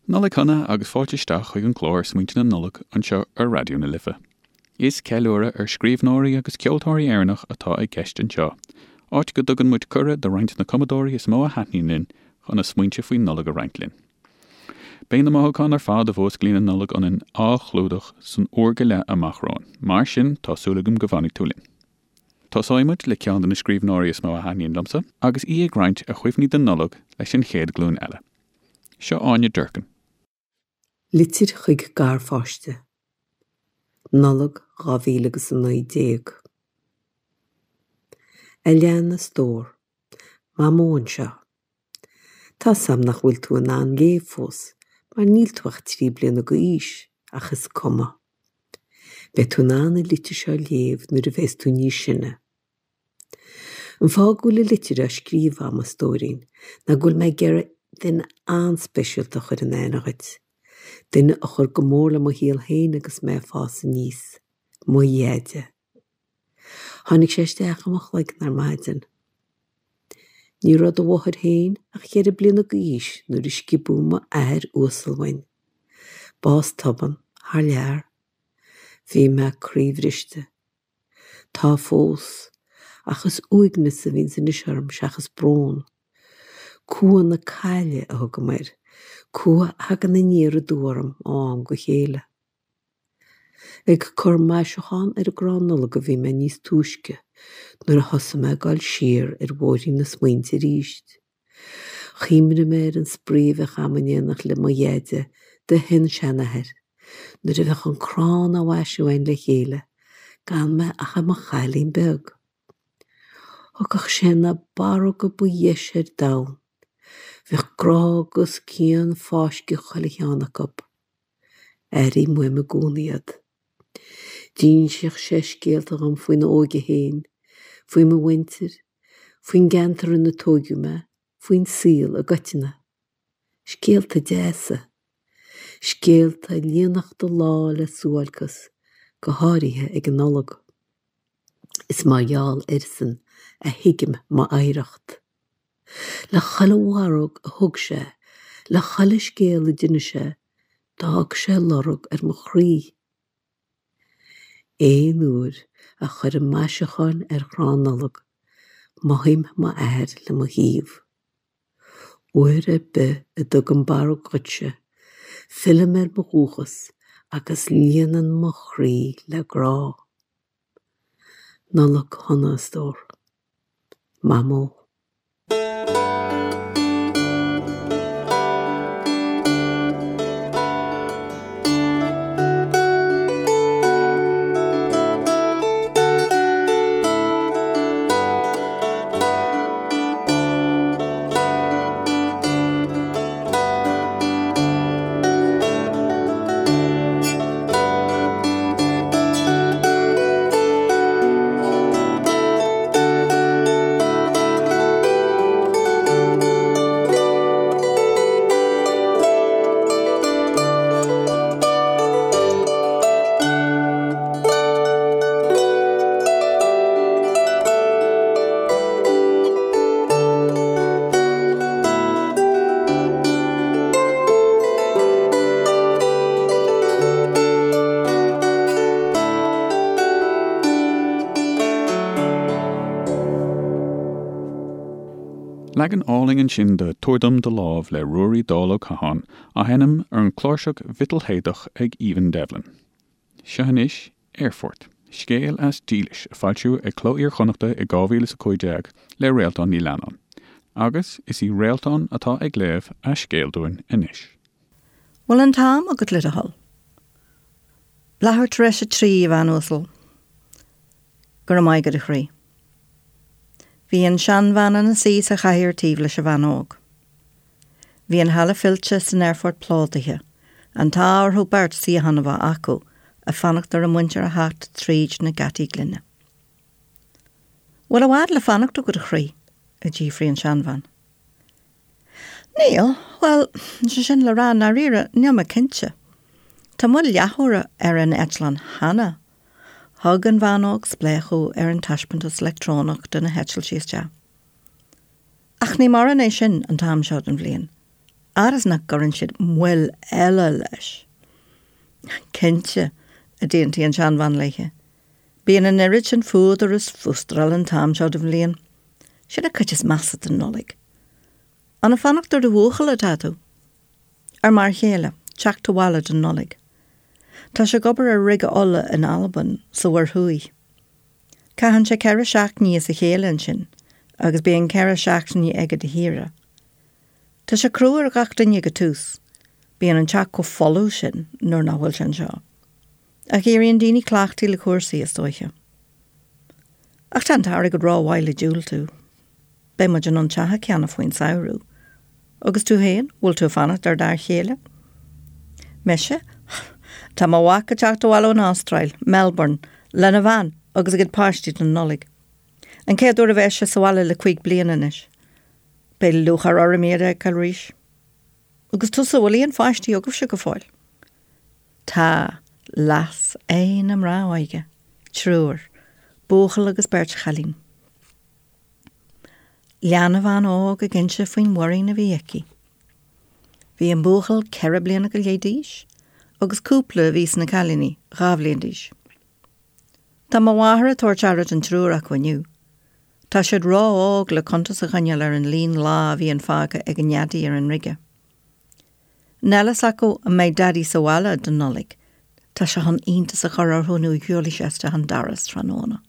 Nollaig shona agus fáilte isteach chuig an gclár Smaointe na Nollag anseo ar Raidió na Life. Is ceiliúradh ar scríbhneoirí agus ceoltóirí Éireannach atá i gceist anseo, áit go dtugann muid cuireadh do roinnt de na cumadóirí is mó a thaitníonn linn chun a smaointe faoin Nollaig a roinnt linn. Beidh na mothúcháin ar fad a mhúsclaíonn an Nollaig ionainn á chlúdach san uair go leith amach romhainn, mar sin tá súil agam go bhfanfaidh tú linn. Tosóidh muid le ceann de na scríbhneoirí is mó a thaitníonn liomsa, agus í ag roinnt a cuimhní den Nollaig leis an chéad ghlúin eile. Seo Áine Durkin. Litir chuig garpháiste. Nollaig 2000 agus 19. A lean, a stór. Mamó anseo. Tá's a'm nach bhfuil tú in ann léamh fós mar níl tú ach 3 bliana d'aois ach is cuma. Beidh tú in ann an litir seo a léamh nuair a bheas tú níos sine. An fáth go bhfuil an litir á scríobh a'm, a stóirín, ná go bhfuil mé ag iarraidh duine an-speisialta a chur in aithne dhuit. Duine a chuir go mór le mo shaol féin agus mé ag fás aníos. Mo Dheaide. Tháinig sé isteach i mo chloigeann ar maidin. Ní raibh do mháthair féin ach cheithre bliana d'aois nuair a sciobadh m'athair uasal uainn. Bás tobann, thar lear. Bhí mé croíbhriste. Tá fós, ach is uaigneas a bhíonns anois orm seachas brón. Cumha na caille a thugaim air, cumha a thagann aniar aduaidh orm ó am go chéile. Ag cur maisiúchán ar an gcrann Nollag a bhí mé níos túisce nuair a thosaigh mé ag dul siar ar bhóithrín na smaointe arís. Chuimhnigh mé ar an spraoi a bheadh a'm in éineacht le mo Dheaide, do shin-seanathair, nuair a bheadh an crann á mhaisiú a'inn le chéile, gan mé ach i mo chailín beag. Thugadh sé na barróga ba dheise ar domhan. Bheadh grá agus cian fáiscthe chuile cheann acu. Airím uaim i gcónaí iad. D'insíodh sé scéalta dhom faoina óige féin, faoi mo mhuintir, faoin gceantar ina tóigeadh mé, faoin saol i gcoitinne. Scéalta deasa. Scéalta a líonfadh do lá le suáilceas, go háirithe ag an Nollaig. Is mar gheall airsean a thuigim m'oidhreacht. Le chuile bharróg a thug sé, le chuile scéal a d'inis sé, d'fhág sé lorg ar mo chroí. Aon uair a chuirim maisiúcháin ar chrann Nollag, mothaím m'athair le mo thaobh. Uair ar bith a dtugaim barróg dhuitse, fillim ar mo dhúchas agus líonann mo chroí le grá. Nollaig shona, a stór. Mamó. Leagan álainn ansin de 'Tabhair Dom Do Lámh' le Ruairí Dall Ó Catháin, á sheinm ar an chláirseach mhiotalshéideach ag Aoibhinn Devlin. Seo anois Aerfort, scéal as Dílis, a foilsíodh ag Cló Iar-Chonnachta i 2015 le Réaltán Ní Leannáin. Agus is í Réaltán atá ag léamh a scéil dúinn anois. Bhfuil an t-am agat le do thoil? Leathuair tar éis a trí, a bhean uasal. Go raibh maith agat, a chroí. Bhí an seanbhean ina suí sa chathaoir taobh leis an bhean óg. Bhí an halla fillte san aerfort plódaithe, an t-ádh orthu beirt suíochán a bheith acu, ag fanacht ar a muintir a theacht tríd na geataí gloine. Bhfuil i bhfad le fanacht agat, a chroí? a d'fhiafraigh an seanbhean. Níl, bhuel, sé sin le rá, i ndáiríre, níl mé cinnte. Tá moill leathuaire ar an eitleán cheana. Thug an bhean óg spléachadh ar an taispeántas leictreonach de na heitiltí isteach. Ach ní mórán é sin an t-am seo den bhliain. Fhad is nach gcuireann siad moill eile leis. Cinnte, a d'aontaigh an tseanbhean léithe. Bíonn an oiread sin fuadar is fústráil an t-am seo den bhliain. Sin an chuid is measa den Nollaig. An ag fanacht ar do bhuachaill atá tú? Ar m'fhear chéile, teacht abhaile don Nollaig. Tá sé ag obair ar rige ola in Albain, sa Mhuir Thuaidh. Caitheann sé 4 seachtainí as a chéile ansin agus bíonn 4 seachtainí aige de shaoire. Tá sé crua ar ghach duine ag an tús. Bíonn an teach chomh folamh sin nuair nach bhfuil sé anseo. Ach éiríonn daoine cleachtaithe le cúrsaí, is dóiche. Ach tá an t-airgead rómhaith le diúltú. Beidh muid in ann teach a cheannach faoin samhradh. Agus tú féin, bhfuil tú ag fanacht ar d'fhear chéile? Mise? Tá mo mhac ag teacht abhaile ón Astráil, Melbourne, lena bhean agus a gcuid páistí don Nollaig. An chéad uair a bheas sé sa bhaile le cuig bliana anois. Beidh lúcháir orm iad a fheiceáil arís. Agus tusa, bhfuil aon pháistí agaibhse go fóill? Tá, leas aghaidh na mná óige, triúr, buachaill agus beirt chailín. Lean an bhean óg ag inse faoin mhuirín a bhí aici. Bhí an buachaill 4 bliana go leith d'aois agus cúpla a bhí sna cailíní, 2 bhliain d'aois. Tá mo mháthair ag tabhairt aire don triúr acu inniu. Tá siad ró-óg le cuntas a choinneáil ar an líon lá a bhíonn fágtha ag a nDaidí ar an rige. Níl a fhios acu an mbeidh Daidí sa bhaile don Nollaig, tá sé chun iontas a chur orthu nuair a shiúlfaidh sé isteach an doras tráthnóna.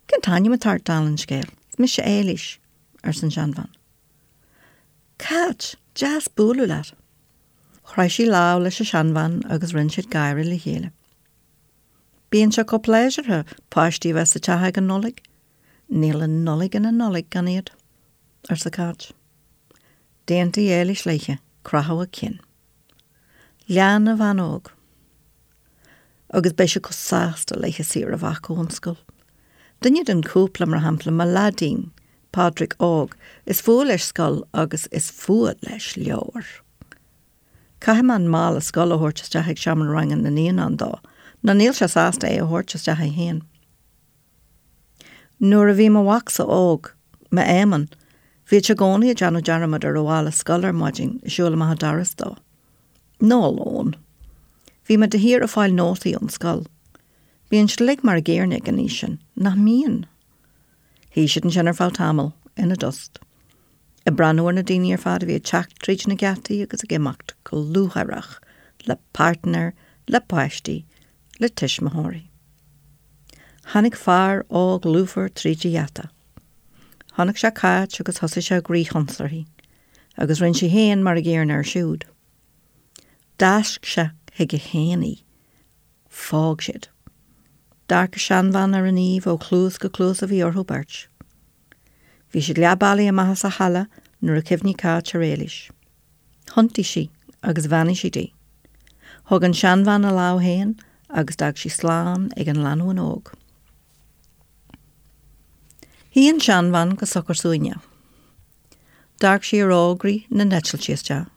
Cén t-ainm atá ort, dála an scéil? Is mise Éilís, arsa an seanbhean. Cáit, deas bualadh leat. Chroith sí lámh leis an seanbhean agus rinne siad gáire le chéile. Bíonn sé chomh pléisiúrtha páistí a bheith sa teach ag an Nollaig. Níl an Nollaig ina Nollaig gan iad, arsa Cáit. D'aontaigh Éilís léithe, croitheadh a cinn. Lean an bhean óg. Agus beidh siad chomh sásta laetha saoire a bheith acu ón scoil. Duine den chúpla, mar shampla, mo leaidín, Pádraig óg, is fuath leis scoil agus is fuath leis leabhair. Caithfidh mé an mála scoile a thabhairt isteach ag seomra ranga na naíonán dó, nó níl sé sásta é a thabhairt isteach é féin. Nuair a bhí mo mhacsa óg, m'Éamonn, bhíodh sé i gcónaí ag déanamh dearmad ar a mhála scoile ar maidin ag siúl amach an doras dó. Nó a lón. Bhí mé de shíor ag fáil nótaí ón scoil. Bíonn siad uilig mar a gcéanna ag an aois sin, nach mbíonn? Shuigh siad ansin ar feadh tamaill, ina dtost. Ag breathnú ar na daoine ar fad a bhí ag teacht tríd na geataí agus ag imeacht go lúcháireach, le páirtnéir, le páistí, le tuismitheoirí. Tháinig fear óg lúfar tríd an gheata. Chonaic sé Cáit agus thosaigh sé ag rith ionsuirthi, agus rinne sí féin mar a gcéanna air siúd. D'fháisc sé chuige féin í. Phóg siad. D'amharc an seanbhean ar an aoibh ó chluas go cluas a bhí orthu beirt. Bhí siad leath bealaigh amach as an halla nuair a chuimhnigh Cáit ar Éilís. Thiontaigh sí agus bheannaigh sí di. Thóg an seanbhean a lámh féin agus d'fhág sí slán ag an lánúin óg. Shuigh an seanbhean go socair suaimhneach. D'amharc sí ar fhógraí na n-eitiltí isteach.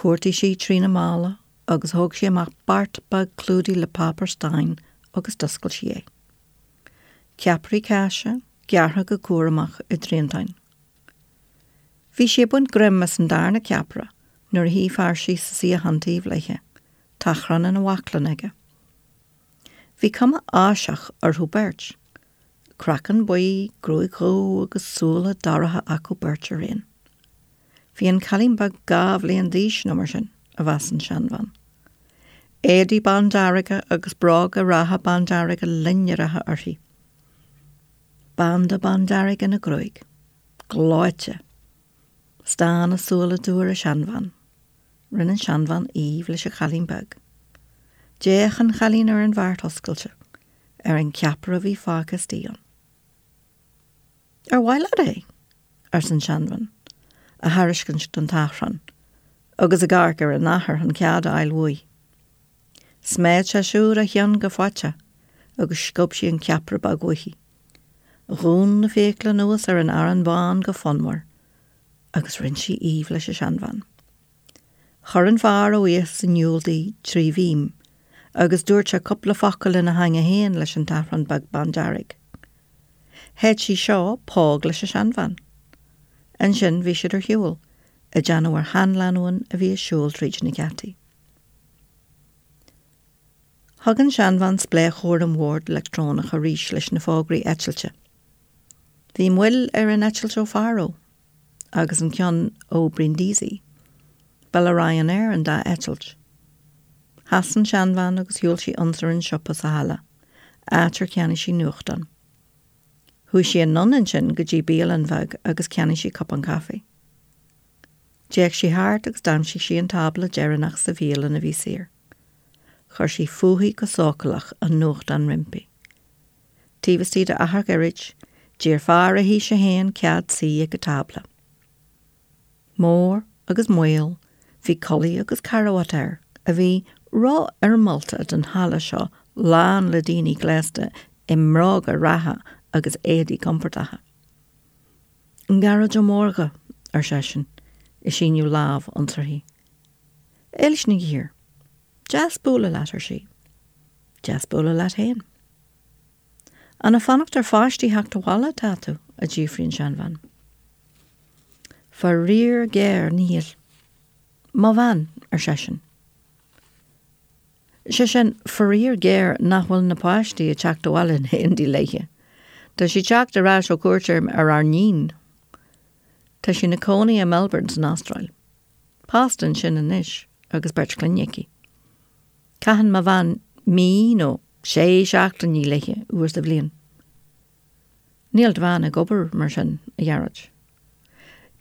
Chuartaigh sí trína mála agus thóg sí amach beart beag clúdaithe le páipéar stáin agus d'oscail sí é. Ceapairí cáise, gearrtha go cúramach i dtriantáin. Bhí sí ag baint greim as an darna ceapaire nuair a shuigh fear síos sa suíochán taobh léithe, tachrán ina bhaclainn aige. Bhí cuma Áiseach orthu beirt. Craiceann buí, gruaig dhubh agus súile dorcha acu beirt araon. Bhí an cailín beag 2 bhliain d'aois nó mar sin, a mheas an seanbhean. Éadaí bándearga agus bróga reatha bándearga loinnreacha uirthi. Banda bándearg ina gruaig. Gleoite. Stán a súile dubha ar an seanbhean. Rinne an seanbhean aoibh leis an chailín beag. D'fhéach an chailín ar an bheart oscailte, ar an cheapaire a bhí fágtha istigh ann. Ar mhaith leat é? arsa an seanbhean, á thairiscint don tachrán, agus ag amharc ar an athair chun cead a fháil uaidh. Sméid sé siúd a cheann go faiteach agus sciob sí an ceapaire beag uaithi. Dhún na fiacla anuas ar an arán bán go fonnmhar agus rinne sí aoibh leis an seanbhean. Chuir an fear a bhuíochas in iúl di trí mhím agus dúirt sé cúpla focal ina theanga féin leis an tachrán beag bándearg. Shéid sí seo póg leis an seanbhean. Ansin bhí siad ar shiúl. Ag déanamh ar sheanlánúin a bhí ag siúl tríd na geataí. Thug an seanbhean spléachadh ar an bhord leictreonach arís leis na fógraí eitilte. Bhí moill ar an eitilt ó Faro agus an ceann ó Brindisi. Ba le Ryanair an dá eitilt. Sheas an seanbhean agus shiúil sí ionsar an siopa sa halla, áit ar cheannaigh sí nuachtán. Chuaigh sí anonn ansin go dtí bialann bheag agus cheannaigh sí cupán caife. D'fhéach sí thart agus d'aimsigh sí an tábla deireanach sa bhialann a bhí saor. Chuir sí fúithi go sócúlach an nuachtán roimpi. Taobh istigh d'achar gairid, d'iarr fear a haoise féin cead suí ag a tábla. Mór agus maol, bhí culaith agus carbhat air a bhí rófhoirmeálta don halla seo lán le daoine gléasta i mbróga reatha agus éadaí compordacha. Gearóid Ó Mórdha, ar seisean, ag síneadh lámh ionsuirthi. Éilis Nig Uidhir. Deas bualadh leat, ar sí. Deas bualadh leat féin. An ag fanacht ar pháistí theacht abhaile atá tú? a d'fhiafraigh an seanbhean. Faraor géar, níl. Mo bhean, ar seisean. Sé sin, faraor géar nach bhfuil na páistí ag teacht abhaile in éindí léithe. Tá sí ag teacht ar ais ó cuairt ar ár n-iníon. Tá sí ina cónaí i Melbourne san Astráil. Pósta ansin anois agus beirt clainne aici. Caitheann mo bhean mí nó sé seachtainí léithe uair sa bhliain. Níl do bhean ag obair mar sin, a Ghearóid.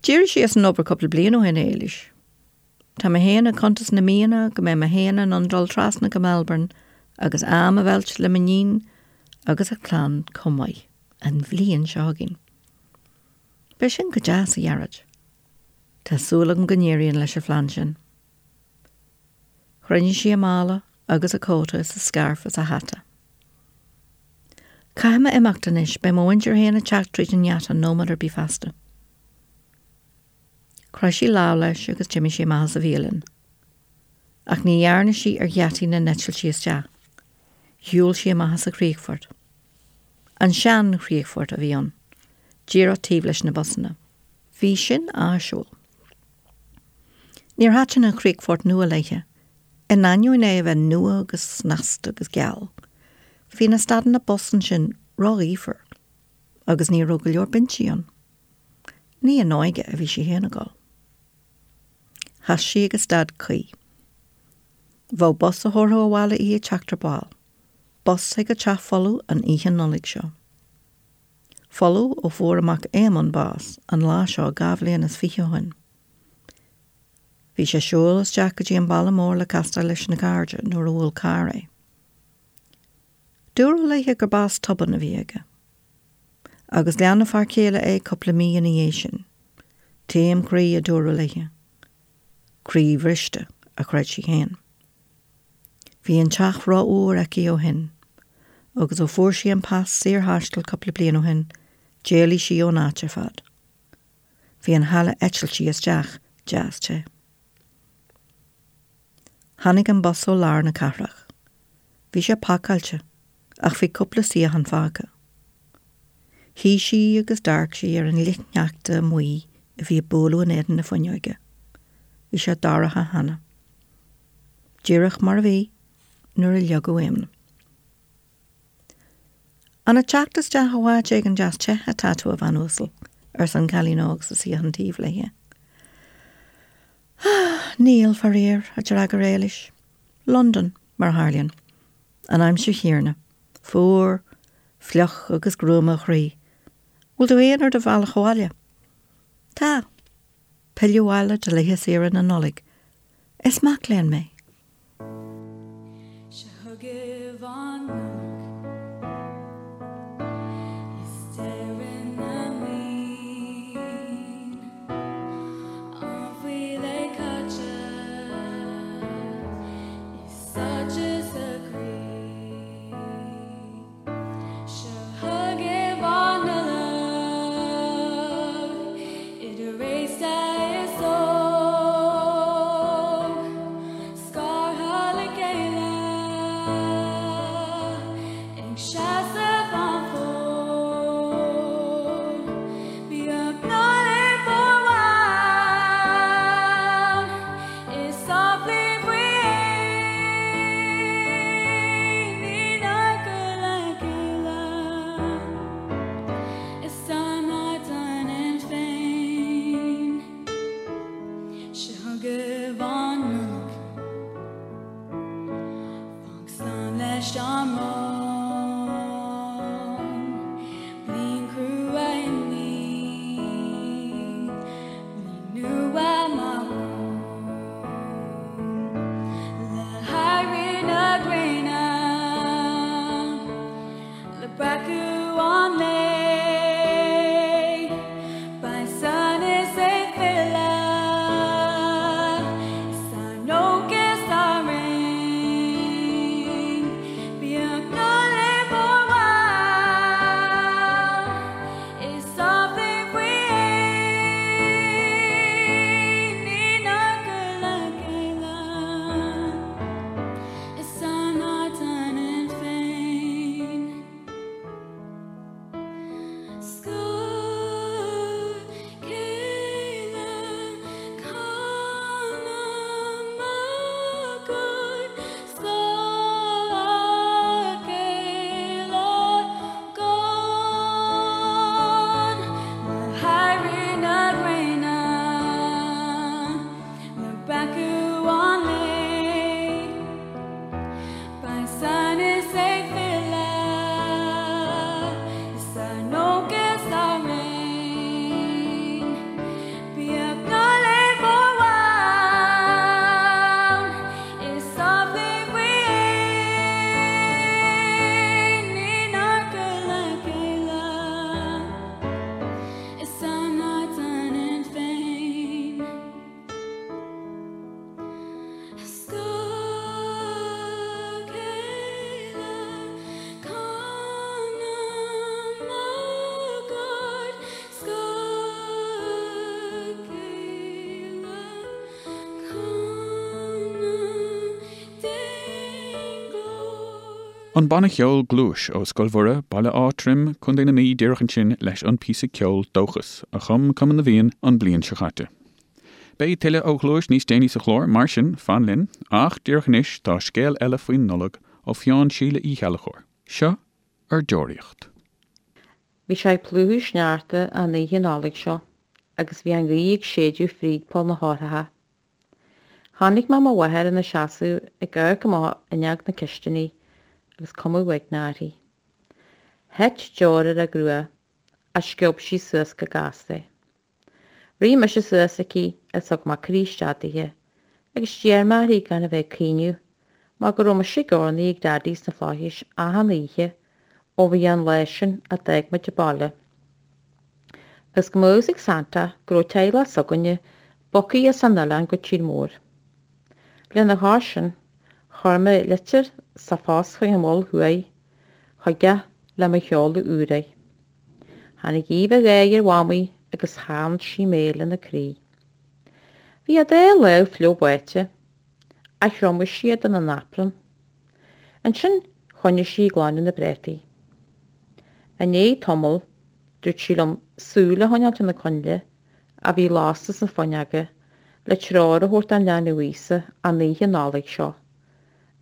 D'éirigh sí as an obair cúpla bliain ó shin, a Éilis. Tá mé féin ag cuntas na míonna go mbeidh mé féin in ann dul trasna go Melbourne agus am a mheilt le m'iníon agus a clann chomh maith, an bhliain seo chugainn. Beidh sin go deas, a Ghearóid. Tá súil agam go n-éiríonn leis an phlean sin. Chruinnigh sí a mála agus a cóta is a scairf is a hata. Caithfidh mé imeacht anois, beidh mo mhuintir féin ag teacht tríd an ngeata nóiméad ar bith feasta. Chroith sí lámh leis agus d'imigh sí amach as an bhialann. Ach ní dhearna sí ar gheataí na n-eitiltí isteach. Shiúil sí amach as an chríochfort. An sean-chríochfort a bhí ann, díreach taobh leis na busanna. Bhí sin áisiúil. Níor thaitin an chríochfort nua léithe, in ainneoin é a bheith nua agus snasta agus geal. Bhí na stadanna bus ansin róghaofar agus ní raibh go leor binsí ann. Ní in óige a bhí sí féin ag dul. Sheas sí ag an stad cuí. Bheadh bus a thabharfadh abhaile í ag teacht ar ball, bus chuig a teach folamh an oíche Nollag seo. Folamh ó fuair a mac Éamonn bás an lá seo 22 bhliain ó shin. Bhí sé ag siúl isteach go dtí an baile mór le castáil leis na cairde nuair a bhuail carr é. Dúradh léithe gur bás tobann a bhí aige. Agus lean a fear céile é cúpla mí ina dhiaidh sin. Taom croí a dúradh léithe. Croí bhriste, a chreid sí féin. Bhí an teach rófhuar aici ó shin, agus ó fuair sí an pas saorthaistil cúpla bliain ó shin, d'éalaigh sí ón áit ar fad. Bhí an halla eitiltí isteach deas te. Tháinig an bus ó lár na cathrach. Bhí sé pacáilte, ach bhí cúpla suíochán fágtha. Shuigh sí agus d'amharc sí ar an fhlichshneachta amuigh a bhí ag bualadh in éadan na fuinneoige. Bhí sé dorcha cheana. Díreach mar a bhí nuair a leagadh Éamonn. An ag teacht isteach ó áit éigin deas te atá tú, a bhean uasal? arsa an cailín óg sa suíochán taobh léi. Ah, níl, faraor, a d'fhreagair Éilis. Londain, mar a tharlaíonn. An aimsir chéanna. Fuar, fliuch agus gruama a chroí. Bhfuil tú féin ar do bhealach abhaile? Tá. Pilleadh abhaile do laetha saoire na Nollag. Is mac léinn mé. Seo chugaibh an Nollaig is deireadh na mblian, am faoi leith caite is sáite sa chroí. Seo chugaibh an Nollaig, idir aosta is óg, scartha le chéile chugaibh an Nollaig. Fág slán leis an mbrón. Bliain chrua i ndiaidh bliain nua maith romhainn. Le héirí na gréine, le breacadh an lae, beidh sonas ag filleadh is ár ndóchas á roinnt. Bíodh Nollaig mhór mhaith is amhlaidh faoi fhéin inár gcur le chéile is ár n-ard ionainn féin. Scor céile canam agóid Scor céile gan Le héirí na gréine Le breacadh an lae Beidh sonas ag filleadh is ár ndóchas á roinnt. Bíodh Nollaig mhór mhaith is amhlaidh faoi fhéin inár gcur le chéile is ár n-ard ionainn féin. Scor céile canam agóid Scor céile canam d'aon ghlór. An banna cheoil Gluais ó Scoil Mhuire, Baile Átha Troim, Contae na Mí díreach ansin leis an píosa ceoil Dóchas, a chum Cumann na bhFiann an bliain seo chaite. Beidh tuilleadh ó Ghluais níos déanaí sa chlár, mar sin, fan linn, ach díreach anois tá scéal eile faoin Nollaig ó pheann Síle Uí Cheallachóir. Seo Ar Deoraíocht. Bhí sé ag plúchadh sneachta an oíche Nollag seo agus bhí an ghaoth ag séideadh fríd poll na heochracha. Chonaic mé mo mháthair ina seasamh ag amharc amach fhuinneog na cistine agus cuma uaigneach uirthi. Thit deoir ar a grua ach sciob sí suas go gasta é. Rith mise suas aici agus thug mé croí isteach dithe agus d'iarr mé uirthi gan a bheith ag caoineadh mar go raibh mise ag urnaí ag Daidí sna Flaithis achan oíche ó bhí an lá sin a d'fhág muid an baile. Agus go mbeadh a fhios ag Santa go raibh teaghlach s'againne bogtha as an oileán go tír mór. Lena chois sin, chuir mé litir sa phost chuig an Mhol Thuaidh chuige le mo sheoladh úr air. Tháinig aoibh an gháire ar Mhamaí agus theann sí mé lena croí. Bhí a dá lámh fliuch báite, ach thriomaigh sí iad ina naprún. Ansin choinnigh sí ag glanadh na bpréataí. I ndiaidh tamaill dúirt sí liom súil a choinneáilt ar na coinnle a bhí lasta sna fuinneoga le treoir a thabhairt don leanbh Íosa an oíche Nollag seo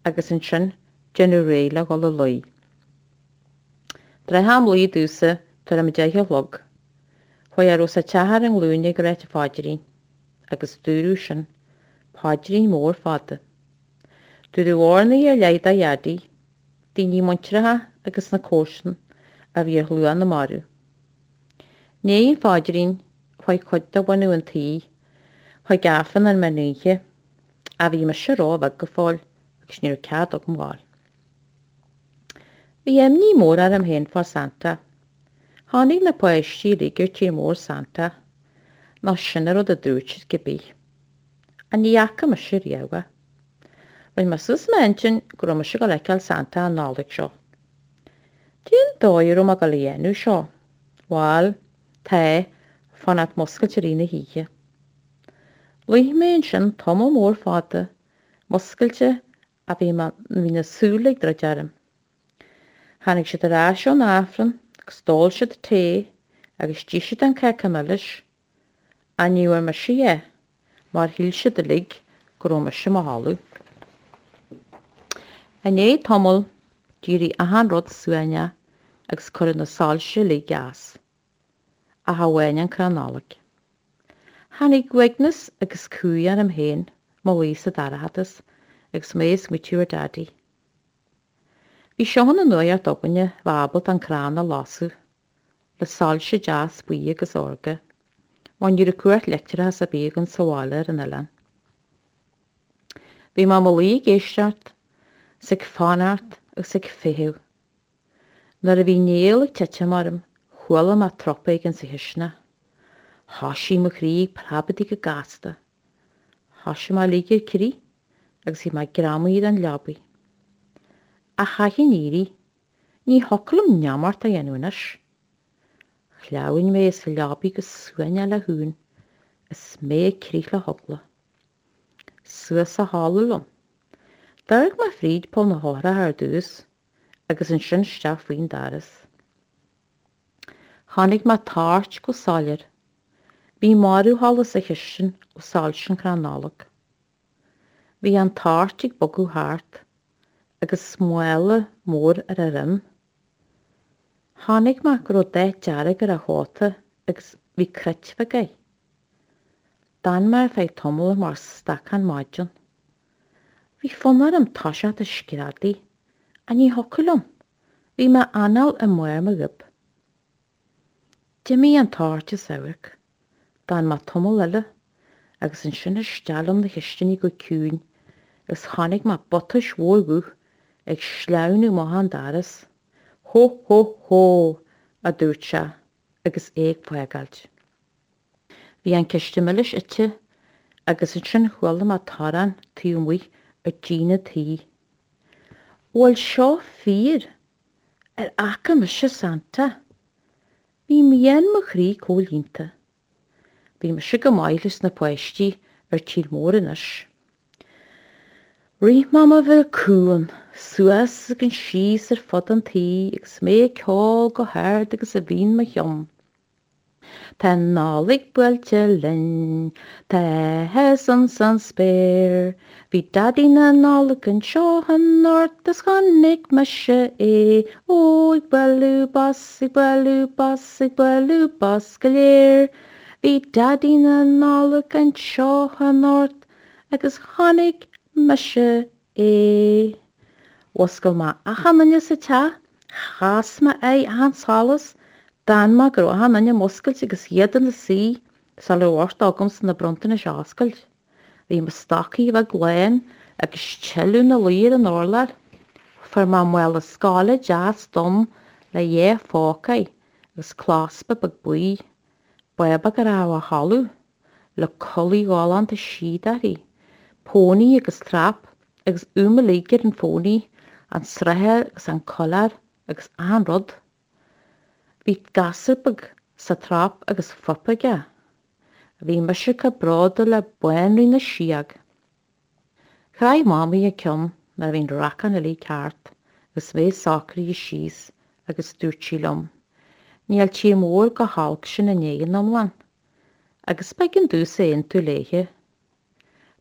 agus ansin déanamh réidh le dhul a luí. Tráth am luí domhsa tuairim a 10 a chlog, chuaigh a raibh sa teach ar a nglúine ag ráit an phaidrín, agus dúradh sin, paidrín mór fada. Dúradh urnaí ar leith do Dhaidí, daoine muinteartha agus na comharsan a bhí ar shlua na marbh. I ndiaidh an phaidrín, chuaigh cuid de bhunadh an tí chuig Aifreann an mheán oíche, ach bhí mise ró-bheag go fóill agus ní raibh cead agam ghabháil. Bhí imní mór orm féin fá Santa. Chonaic na páistí uilig ar tír mór Santa, nó sin an rud a dúirt siad cibé. Ach ní fhaca mise riamh é. Rinne mé suas m'intinn go raibh mise ag dul a fheiceáil Santa an Nollaig seo. Cén dóigh a raibh mé ag dul a dhéanamh seo? Bhail, tá, fanacht muscailte i rith na hoíche. Luigh mé ansin tamall mór fada, muscailte ach bhí mé, bhí na súile ag druid orm. Tháinig siad ar ais ón Aifreann agus d'ól siad tae agus d'ith siad an cáca milis, ach ní bhfuair mise é mar shíl siad uilig go raibh mise i mo chodladh. I ndiaidh tamaill d'éirigh achan rud suaimhneach agus cuireadh na soilse uilig as, ach amháin an crann Nollag. Tháinig uaigneas agus cumhaidh orm féin mo luí sa dorchadas agus mé ag smaoitiú ar Daidí. Bhí seo ina nuaíocht againne bheith ábalta an crann a lasadh le soilse deas buí agus órga, mar ní raibh cumhacht leictreachas ar bith againn sa bhaile ar an oileán. Bhí mé mo luí ag éisteacht 's ag fanacht agus ag feitheamh. Nuair a bhí néal ag titim orm, chuala mé trup éigin sa chisteanach. Thoisigh mo chroí ag preabadaigh go gasta. Thoisigh mé ag ligean crith agus bhí mé greamaithe den leabaidh. Ach chaithfinn éirí. Ní thiocfadh liom neamart a dhéanamh anois. Shleamhain mé as an leabaidh go suaimhneach le huain is mé ag crith le heagla. Suas sa halla liom. D'amharc mé fríd poll na heochrach ar dtús agus ansin isteach faoin doras. Chonaic mé toirt go soiléir. Bhí marbhsholas sa chistin ó soilse an chrann Nollag. Bhí an toirt ag bogadh thart agus mála mór ar a dhroim. Chonaic mé go raibh dath dearg ar a chóta agus bhí cruit bheag air. D'fhan mé ar feadh tamaill mar stacán maidin. Bhí fonn orm toiseacht ag screadaigh, ach ní thiocfadh liom, bhí m'anáil i mbarr mo ghoib. D'imigh an toirt as amharc, d'fhan mé tamall eile, agus ansin isteach liom 'na chistiní go ciúin agus chonaic mé buatais mhór dhubh ag sleamhnú amach an doras. Hó hó hó! a dúirt sé agus é ag fágáilt. Bhí an císte milis ite agus ansin chuala mé torann taobh amuigh ar díon an tí. Bhfuil seo fíor? Ar fhaca mise Santa? Bhí mian mo chroí comhlíonta. Bhí mise go maith leis na páistí ar tír mór anois. Rith mé mar bheadh cuan, suas agus síos ar fud an tí agus mé ag ceol go hard agus a bhí in mo cheann. Tá an Nollaig buailte linn, tá áthas ins an spéir. Bhí Daidí na Nollag anseo anocht is chonaic mise é, ó, ag bualadh bos, ag bualadh bos, ag bualadh bos go léir. Bhí Daidí na Nollag anseo anocht agus chonaic mise é. Mhuscail mé achan duine sa teach, chas mé aghaidh achan solas, d'fhan mé go raibh achan duine múscailte agus iad ina suí sula raibh uchtach agamsa na bronntanais a oscailt. Bhí mo stocking bheag lán agus tuilleadh ina luí ar an urlár. Fuair mé mála scoile deas donn le dhá phóca air agus clospa beag buí, bábóg a raibh a chodladh. le culaith ghalánta síoda uirthi, pónaí agus trap agus úim uilig ar an phónaí, an srathair agus an coileár agus achan rud. Bhí gasúr beag sa trap agus fuip aige. Bhí mise chomh bródúil le Banríon na Síóg. Chroith Mamaí a ceann nuair a bhí an racán uilig thart agus mé socraithe síos agus dúirt sí liom, Níl tír mór chomh holc sin in Éirinn iomlán. Agus b'éigean domhsa aontú léithe.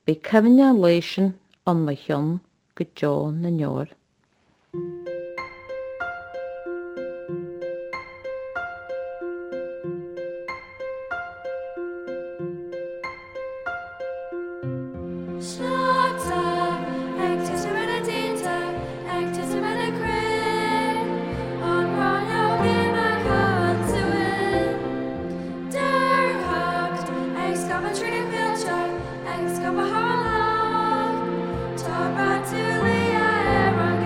Beidh cuimhne an lae sin ann mo cheann go deo na ndeor. Sneachta ag titim ar na díonta, ag titim ar na crainn, An ghráinneog imithe an tsuain. Dearthacht ag scaipeadh trí na coillte, ag scaipeadh thar an loch, Tá brat liath ar an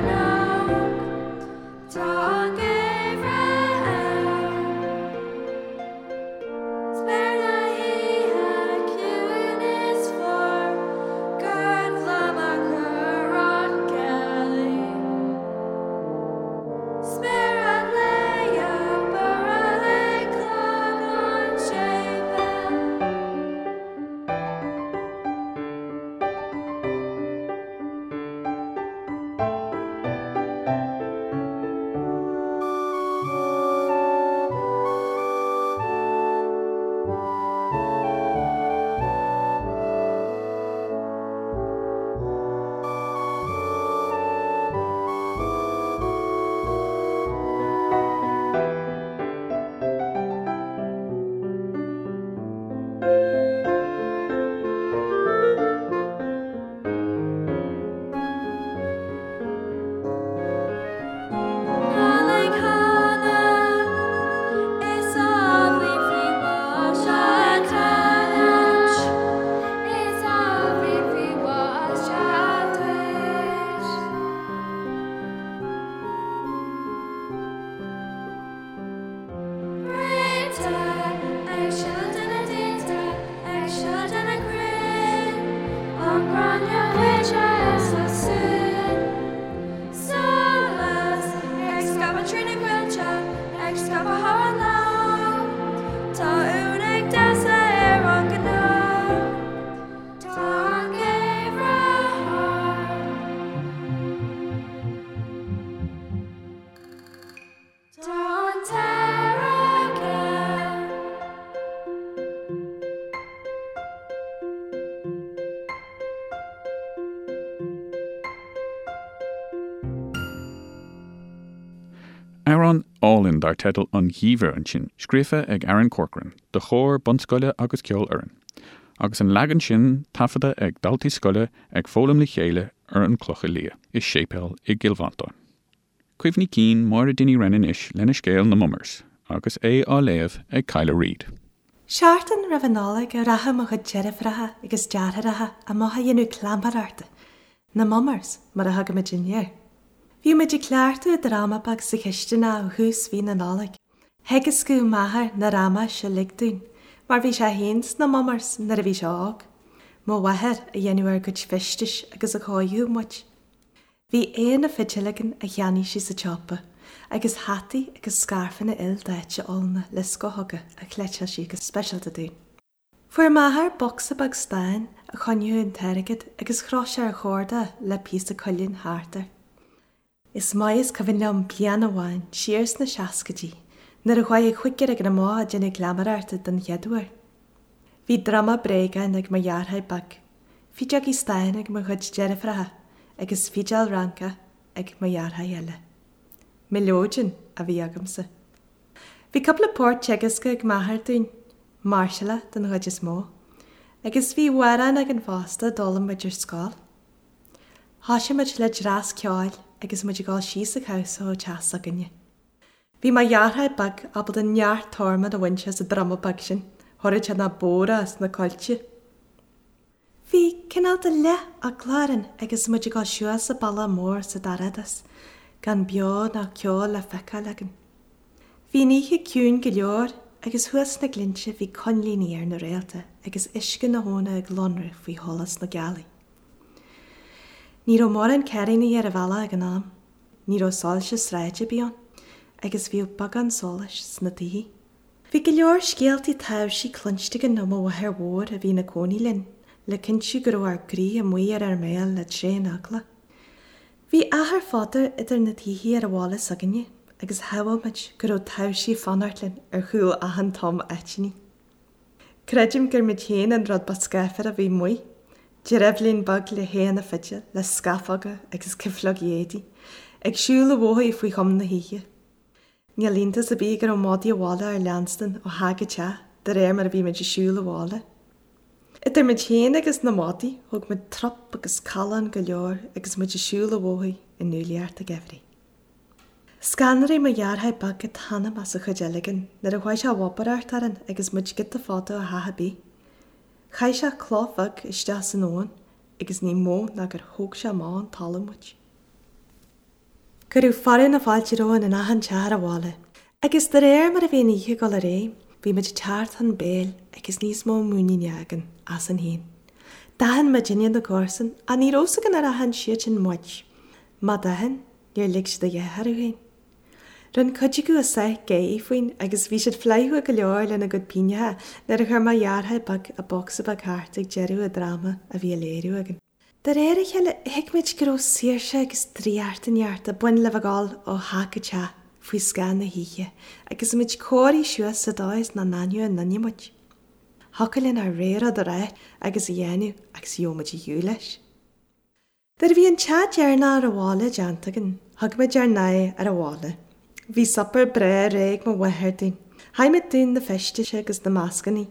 Amhrán álainn dar teideal An Geimhreadh ansin, scríofa ag Aaron Corcoran do chór bunscoile agus ceolfhoireann, agus an leagan sin taifeadta ag daltaí scoile ag foghlaim le chéile ar an Clocha Liath i séipéal i gCill Mhantáin. Cuimhní cinn Máire Dinny Wren anois lena scéal Na Mummers agus é á léamh ag Kyla Reid. Seachtain roimh an Nollaig a rachadh mo chuid deirfiúracha agus deartháireacha amach a dhéanamh cleamaireachta, na Mummers mar a thugadh muidinne air. Bhíodh muid ag cleachtadh dráma beag sa chisteanach ó thús mhí na Nollag. Theagascadh m'athair na ramáis uilig dúinn, mar bhí sé féin sna Mummers nuair a bhí sé óg. Mo mháthair a dhéanadh ár gcuid feistis agus a chóiríodh muid. Bhí éanna fidil againn a cheannaigh sí sa tsiopa, agus hataí agus scairfeanna ildaite olna le scothóga a chleiteáil sí go speisialta dúinn. Fuair m'athair bocsa beag stáin a choinneodh an t-airgead agus chroch sé ar chorda le píosa cuilinn thart air. Is maith is cuimhin liom bliain amháin siar sna seascaidí nuair a chuaigh an chúigear againn amach ag déanamh cleamaireachta den chéad uair. Bhí druma bréagáin ag mo dheartháir beag, fideogaí stáin ag mo chuid deirfiúracha agus fidil Fhrancach ag mo dheartháir eile. Mileoidean a bhí agamsa. Bhí cúpla port teagasctha ag m'athair dúinn, máirseála den chuid is mó, agus bhí amhráin againn fosta a d'fhoghlaim muid ar scoil. Thoisigh muid le dreas ceoil agus muid ag dul síos an cabhsa ó teach s'againne. Bhí mo dheartháir beag ábalta neart torman a bhaint as an druma beag sin, thabharfadh sé na bóithre is na coillte. Bhí cineál de leath-eagla orainn agus muid ag dul suas an bealach mór sa dorchadas, gan beo ná ceo le feiceáil againn. Bhí an oíche ciúin go leor agus thuas sna glinnte bhí coinlíní ar na réalta agus uisce na habhna ag lonradh faoi sholas na gealaí. Ní raibh mórán cairríní ar an bhealach ag an am, ní raibh soilse sráide ar bith ann agus bhíodh beagán solais sna tithe. Bhí go leor scéaltaí taibhsí cluinste againn ó mo mháthair mhór a bhí ina cónaí linn, le cinntiú go raibh ár gcroí amuigh ar ár mbéal le tréan-eagla. Bhí achar fada idir na tithe ar an bhaile s'againne agus shamhail muid go raibh taibhsí ag fanacht linn ar chúl achan tom aiteannaí. Creidim gur muid féin an rud ba scáfar a bhí amuigh, dreibhlín beag le haona fidil, le scafóga agus cifleogaí éadaí, ag siúl an bhóthair faoi choim na hoíche. Níl iontas ar bith go raibh madaí an bhaile ár leanstan ó theach go teach de réir mar a bhí muid ag siúl abhaile. Idir muid féin agus na madaí, thóg muid trup agus callán go leor agus muid ag siúl an bhóthair i ndúlaíocht an gheimhridh. Scanraigh mo dheartháir beag an t-anam as an chuid eile againn nuair a chuaigh sé a bhobaireacht orainn agus muid giota fada ó theach ar bith. Chaith sé cloch bheag isteach san abhainn agus ní mó ná gur thóg sé amach ón talamh muid. Cuireadh fearadh na fáilte romhainn in achan teach ar an bhaile, agus de réir mar a bhí an oíche ag dul ar aghaidh, bhí muid ag teacht chun béil agus níos mó muiníne againn asainn féin. D'aithin muidinne na comharsain, ach ní raibh 'fhios againn ar aithin siadsan muid. Má d'aithin, níor lig siad a dhath orthu féin. Rinne cuid acu a sáith gáirí faoin agus bhí siad flaithiúil go leor lena gcuid pingneacha nuair a chuir mo dheartháir beag an bocsa beag thart ag deireadh an dráma a bhí á léiriú againn. De réir a chéile, thuig muid go raibh saoirse agus draíocht inteacht ag baint le bheith ag dul ó theach go teach faoi scáth na hoíche agus muid cóirithe suas sa dóigh is nach n-aithneodh aon duine muid. Thiocfadh linn ár rogha rud a rá agus a dhéanamh agus gheobhadh muid ar shiúl leis. Nuair a bhí an teach deireanach ar an bhaile déanta againn, thug muid ár n-aghaidh ar an bhaile. Bhí suipéar breá réidh ag mo mháthair dúinn. Chaith muid dúinn na feistis agus na mascannaí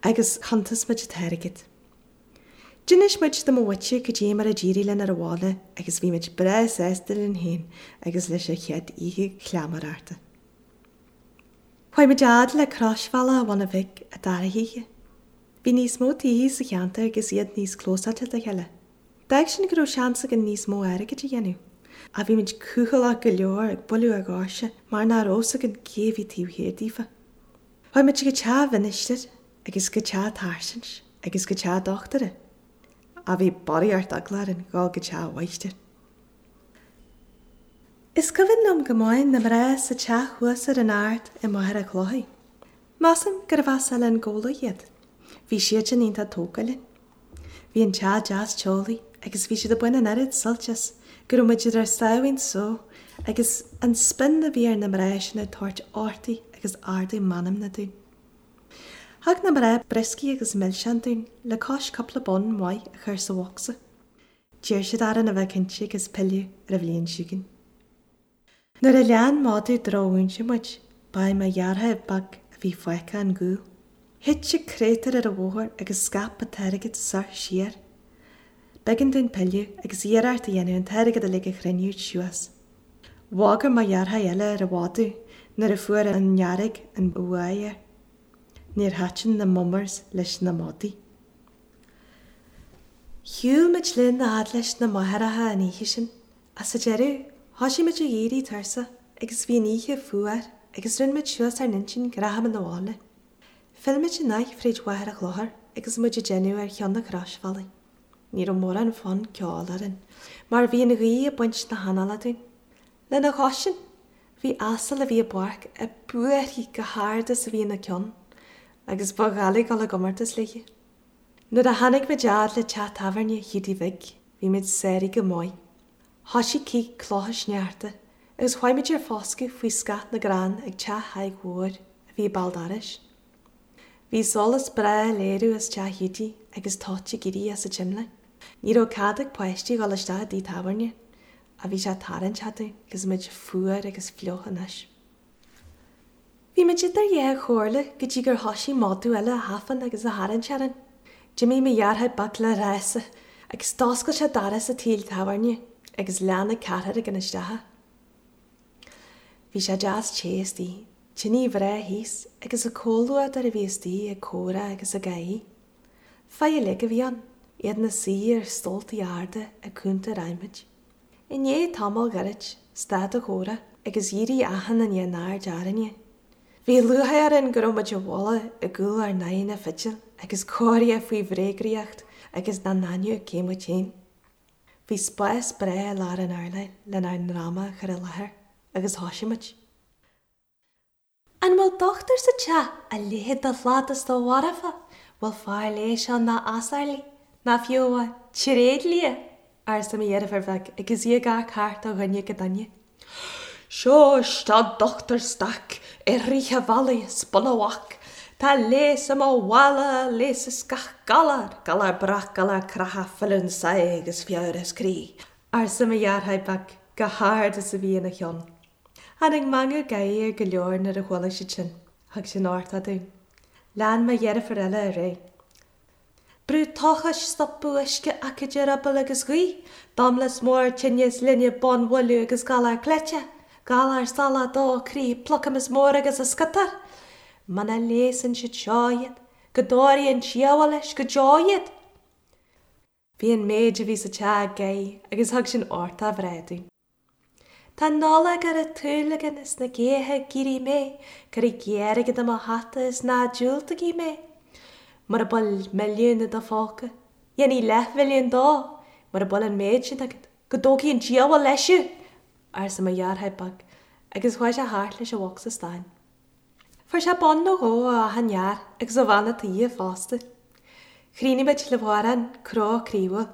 agus chuntas muid an t-airgead. D'inis muid do mo mhuintir cad é mar a d'éirigh linn ar an bhaile agus bhí muid breá sásta linn féin agus leis an chéad oíche chleamaireachta. Chuaigh muid fhad le Croisbhealach an Bhuna Bhig an dara hoíche. Bhí níos mó tithe sa cheantar agus iad níos clósáilte dá chéile. D'fhág sin go raibh seans againn níos mó airgid a dhéanamh. Ach bhí muid cúthaileach go leor ag bualadh ar dhoirse mar nach raibh 'fhios againn cé a bhí taobh thiar daofa. Chuaigh muid go teach an mhinistir agus go teach an tsáirsint agus go teach an dochtúra. Ach bhí barraíocht eagla orainn dhul go teach an mháistir. Is cuimhin liom go maith na mná sa teach thuas ar an ard i Machaire Chlochair. Measaim gurbh as Oileán Ghabhla iad. Bhí siadsan iontach tógtha linn. Bhí an teach deas teolaí agus bhí siad ag baint an oiread suilt as go raibh muid ar ár sáimhín só agus an spion a bhí ar na mná sin ag tabhairt uchtach agus ardú meanmna dúinn. Thug na mná brioscaí agus milseáin dúinn le cois cúpla bonn maith a chur sa bhocsa. D'iarr siad orainn a bheith cinnte agus pilleadh ar an bhliain seo chugainn. Nuair a lean madadh drochmhúinte muid, ba é mo dheartháir beag a bhí fágtha an gcúl. Thit an créatúr ar an bhóthar agus scaip an t-airgead soir siar. B'éigean dúinn pilleadh agus iarracht a dhéanamh an t-airgead uilig a chruinniú suas. Bhagair mo dheartháir eile ar an mhadadh nuair a fuair an fhearg an bhuaidh air. Níor thaitin na mummers leis na madaí. Shiúil muid linn a fhad leis na máithreacha an oíche sin. Ach sa deireadh, thoisigh muid ag éirí tuirseach agus bhí an oíche fuar agus rinne muid suas ár n-intinn go rachadh muid 'na bhaile. Phill muid an áith fríd Mhachaire Chlochair agus muid ag déanamh ar cheann an chrosbhealaigh. Ní raibh mórán fonn ceoil orainn mar bhí an ghaoth ag baint na hanála dúinn. Lena chois sin, bhí asal a bhí i bpáirc ag búirthigh chomh hard is a bhí ina ceann agus ba dhoiligh dul i gcomórtas léi. Nuair a tháinig muid fhad le teach tábhairne Hiúdaí Bhig, bhí muid sáraithe go maith. Thoisigh cith clocha sneachta agus chuaigh muid ar foscadh faoi scáth na gcrann ag teach Thaidhg Mhóir a bhí ag béal dorais. Bhí solas breá ag léiriú as teach Hiúdaí agus toit ag éirí as an tsimléar. Ní raibh cead ag páistí dhul isteach i dtigh tábhairne ach bhí sé tarraingteach dúinn agus muid fuar agus fliuch anois. Bhí muid idir dhá chomhairle go dtí gur thoisigh madadh eile a thafann agus a tharraingt orainn. D'imigh mo dheartháir beag le rása agus d'oscail sé doras an tí tábhairne agus lean an ceathrar againn isteach. Bhí sé deas te istigh, tine bhreá thíos agus an comhluadar a bhí istigh ag comhrá agus ag gáirí. Fir uilig a bhí ann, iad ina suí ar stóltaí arda ag cuntair adhmaid. I ndiaidh tamaill ghairid, stad an chomhrá agus dhírigh achan duine a n-aird orainne. Bhí lúcháir orainn go raibh muid i bhfolach i gcúl ár n-aghaidheanna fidil agus comhartha faoi bhréagriocht agus nach n-aithneodh cé muid féin. Bhí spás breá i lár an urláir lenár ndráma a chur i láthair agus thoisigh muid. An bhfuil dochtúir sa teach a léifeadh do shlad is do mharfa? Bhfuil fear leighis ann nach asarlaí, ná fiú amháin tréidlia? arsa mo dheirfiúr bheag agus í ag amharc thart ó dhuine go duine. Seo isteach Dochtúir Stac i rith an bhealaigh as Bun a' Bhac. Tá leigheas i mo mhála a leigheasfas gach galar, galar breac, galar creatha, filleadh sáith agus fiabhras croí, arsa mo dheartháir beag chomh hard is a bhí ina cheann. Tháinig meangadh gáire ar go leor nuair a chuala siad sin. Thug sin uchtach dúinn. Lean mo dheirfiúr eile ar aghaidh. Brú tochais, stopadh uisce, aicíd eireabaill agus gaoth, domlas mór, tinneas linbh, bonnbhualadh agus galar cleite, galar salach, dó croí, plucamas mór agus an sciotar. Muna leigheasann siad seo iad, go dtabharfaidh an diabhal leis go deo iad! Bhí an méid a bhí sa teach ag gáirí agus thug sin uchtach bhreá dúinn. Tá an Nollaig ar an tsúil againn is na gaotha ag éirí méith, cuirigí airgead i mo hata is ná diúltaigí mé. Mura bhfuil milliún i do phóca, dhéanfaidh leathmhilliún dó, mura bhfuil an méid sin agat, go dtógfaidh an diabhal leis thú! arsa mo dheartháir beag agus chuaigh sé thart leis an bhocsa stáin. Fuair sé bonn nó dhó ó achan fhear agus ó bhean a' toighe fosta. Chríochnaigh muid le hamhrán cró croíúil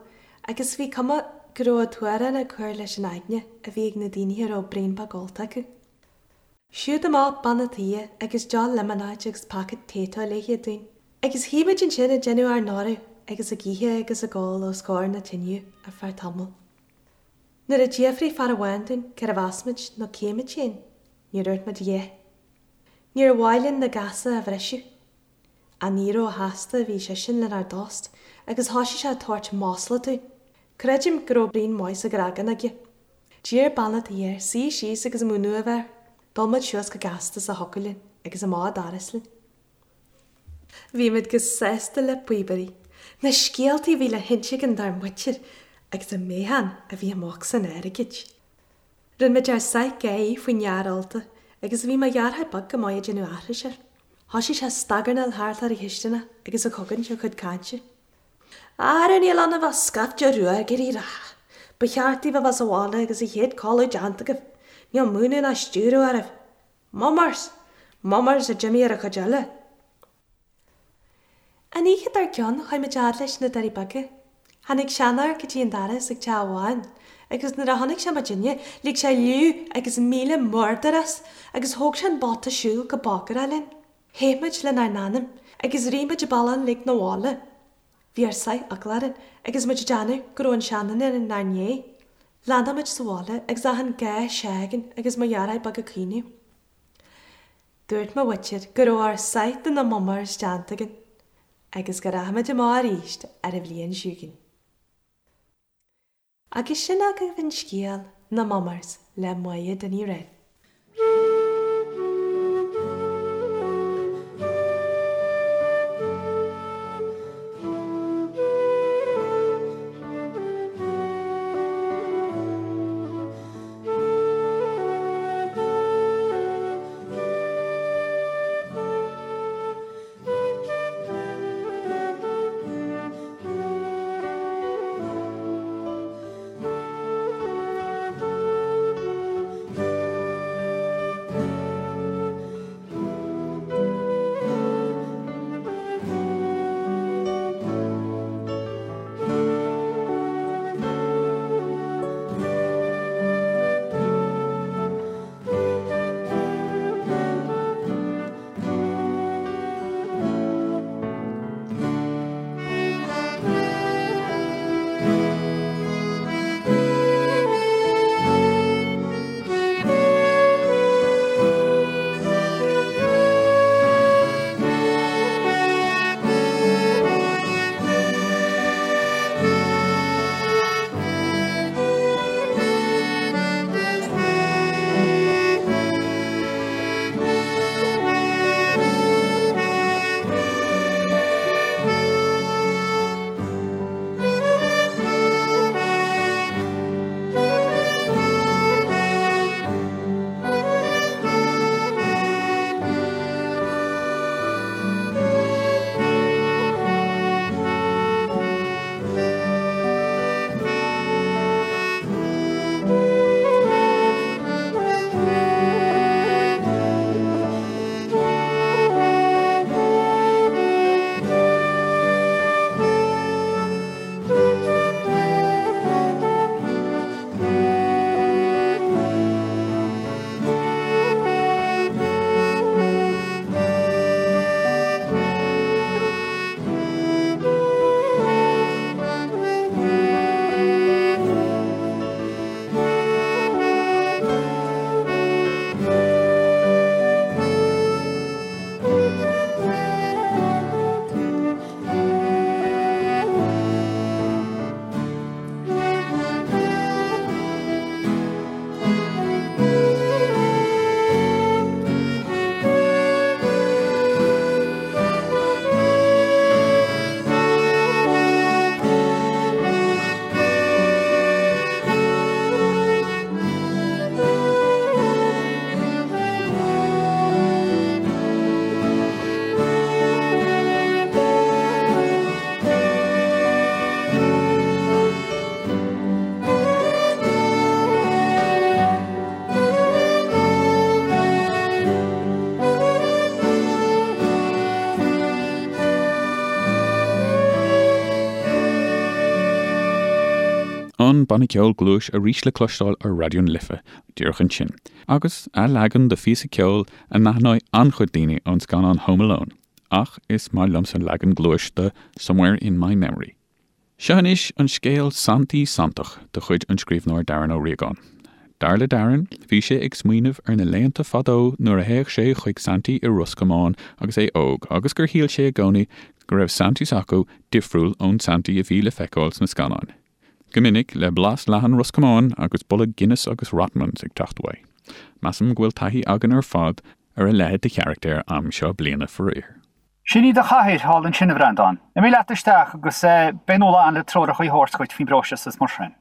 agus bhí cuma go raibh an t-amhrán ag cur leis an aigne a bhí ag na daoine a raibh braon beag ólta acu. Siúd amach bean a' toighe agus deoch liomanáide agus paca Tayto léithe dúinn. Agus shuigh muid ansin ag déanamh ár n-adhradh agus ag ithe agus ag ól os comhair na tineadh ar feadh tamaill. Nuair a d'fhiafraigh fear amháin dúinn cérbh as muid nó cé muid féin, Níor dhúirt muid a dhath. Níor mhaith linn na gasa a bhriseadh. Ach ní róshásta a bhí seisean lenár dtost agus thoisigh sé ag tabhairt masla dúinn. Creidim go raibh braon maith sa ghreagán aige. D'iarr bean a' tí air suí síos agus múineadh a bheith air. D'ól muid suas go gasta is a thiocfadh linn agus amach an doras linn. Bhí muid chomh sásta le píobairí. Na scéaltaí a bhí le hinse againn dár muintir agus an meáchan a bhí i mbocsa an airgid. Rinne muid ár sáith gáirí faoin fhear ólta agus bhí mo dheartháir beag go maith ag déanamh aithris air. Thoisigh sé ag stagarnáil thart ar an chisteanach agus ag cogaint a chuid cainte. Ara níl ionaibh ach scaifte ruagairí reatha. Ba cheart daoibh a bheith sa bhaile agus an chéad codladh déanta agaibh. Níl múineadh ná stiúradh oraibh. Mummers! Mummers a d'imigh ar an chuid eile. An oíche dár gcionn chuaigh muid fhad leis na Doirí Beaga. Tháinig seanfhear go dtí an doras ag teach amháin agus nuair a chonaic sé muidinne lig sé liú agus míle murdar as agus thóg sé an bata siúil go bogarach linn. Theith muid lenár n-anam agus rith muid an bealach uilig 'na bhaile. Bhí ár sáith eagla orainn agus muid ag déanamh go raibh an seanduine inár ndiaidh. Leandáil muid sa bhaile agus achan gá se'againn agus mo dheartháir beag ag caoineadh. Dúirt mo mhuintir go raibh ár sáith de na mummers déanta againn agus go rachaidh muid amach arís ar an bhliain seo chugainn. Agus sin agaibh an scéal, Na Mummers, le Máire Ní Riain. An banna ceoil Gluais arís le cloisteáil ar Raidió na Life díreach ansin, agus a leagan de phíosa ceoil a n-aithneoidh an-chuid daoine ón scannán Home Alone, ach is maith liomsa leagan Gluais de Somewhere in My Memory. Seo anois an scéal Santaí Santach de chuid an scríbhneoir Darren Ó Riagáin. Dar le Darren, bhí sé ag smaoineamh ar na laethanta fadó nuair a théadh sé chuig Santaí i Ros Comáin agus é óg agus gur shíl sé i gcónaí go raibh Santaí s'acu difriúil ón Santaí a bhí le feiceáil sna scannáin. Go minic le blas leathan Ros Comáin agus boladh Guinness agus Rothmans ag teacht uaidh. Measaim go bhfuil taithí againn ar fad ar a leithéid de charachtair am seo bliana faraor. Sin í do chathaoir thall ansin, a Bhreandáin. Imigh leat isteach agus beidh Nuala ann le treoracha a thabhairt dhuit faoin bpróiseas is mar sin.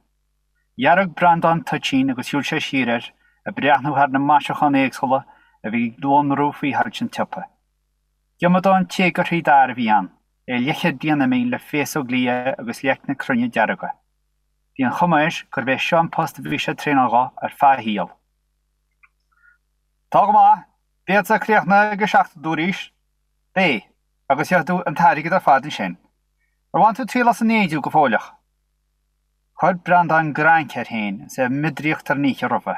Dhearg Breandán toitín agus shiúil sé siar air, ag breathnú thar na maisiúcháin éagsúla a bhí ag lonrú faoi shoilse an tsiopa. Giomadán téagartha d'fhear a bhí ann, é leathchéad bliain imithe le féasóg liath agus leicne cruinne dearga. Bhí an chuma air gurbh é seo an post a bhí sé ag traenáil dho ar feadh a shaoil. Tá go maith. Beadsa críochnaithe ag a 7 a dúraís. Beidh, agus gheobhaidh tú an t-airgead ar fad ansin. Ar bhain tú triail as an fhéidiú go fóilleach? Chuir Breandán grainc air féin is é ag miodraíocht ar an oíche roimhe.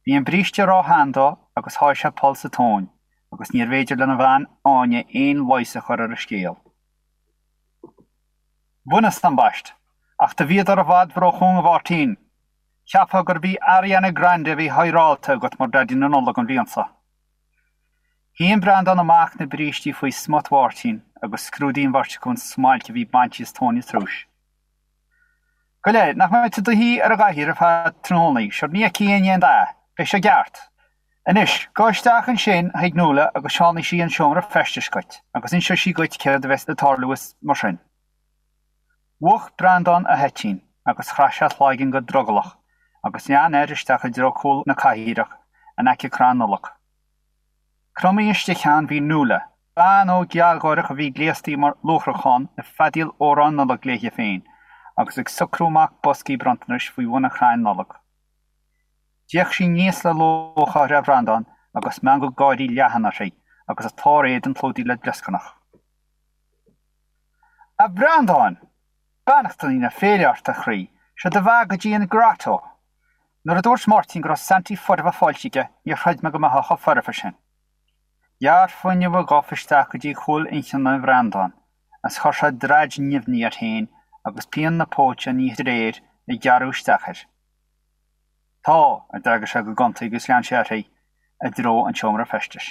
Bhí an bríste ró-shean dó agus sháigh sé poll sa tóin agus níorbh fhéidir lena bhean Áine aon leigheas a chur ar an scéal. Bhaineas, ambaist, ach do bhíodar i bhfad róchúng a Mháirtín. Cheapfá gurb í Ariana Grande a bhí hidhreáilte agat mar Daidí na Nollag an bhliain seo. Shín Breandán amach na brístí faoi smut Mháirtín agus scrúdaigh an bheirt acu an smailc a bhí bainte as tóin an triúis. Gabh i leith, nach mbeidh tú i do shuí ar an gcathaoir ar feadh tráthnónaí, sure ní fheicfidh éinne aon dath, beidh sé i gceart. Anois, gabh isteach ansin chuig Nuala agus seánfaidh sí an seomra feistis dhuit agus inseoidh sí dhuit céard a bheas ag tarlú is mar sin. Mhúch Breandán a thoitín agus chraith sé a chloigeann go drogallach agus lean air isteach i dtreo cúl na cathaoireach in aice crann Nollag. Cromtha istigh ann bhí Nuala, bean óg ghealgháireach a bhí gléasta mar luachrachán ag feadaíl amhrán Nollag léi féin agus ag socrú amach boscaí bronntanais faoi bhun an chrainn Nollag. D'fhéach sí aníos le lúcháir ar Bhreandán agus meangadh gáirí leathan uirthi agus a clár éadain clúdaithe le glioscarnach. A Bhreandáin! Beannachtaí na féile ort, a chroí, seo do bheatha go dtí an grotto! Nuair a dúirt Máirtín go raibh Santaí foirfe faighte aige, níor chreid mé go mbeifeá chomh foirfe sin. Ghearr fuinneamh a ghof isteach go dtí cúl inchinne Bhreandáin, is chuir sé draid nimhní air féin agus pian na póite á ní de réir ag gearradh isteach air. Tá, a d'fhreagair sé go gonta agus lean sé uirthi i dtreo an tseomra feistis.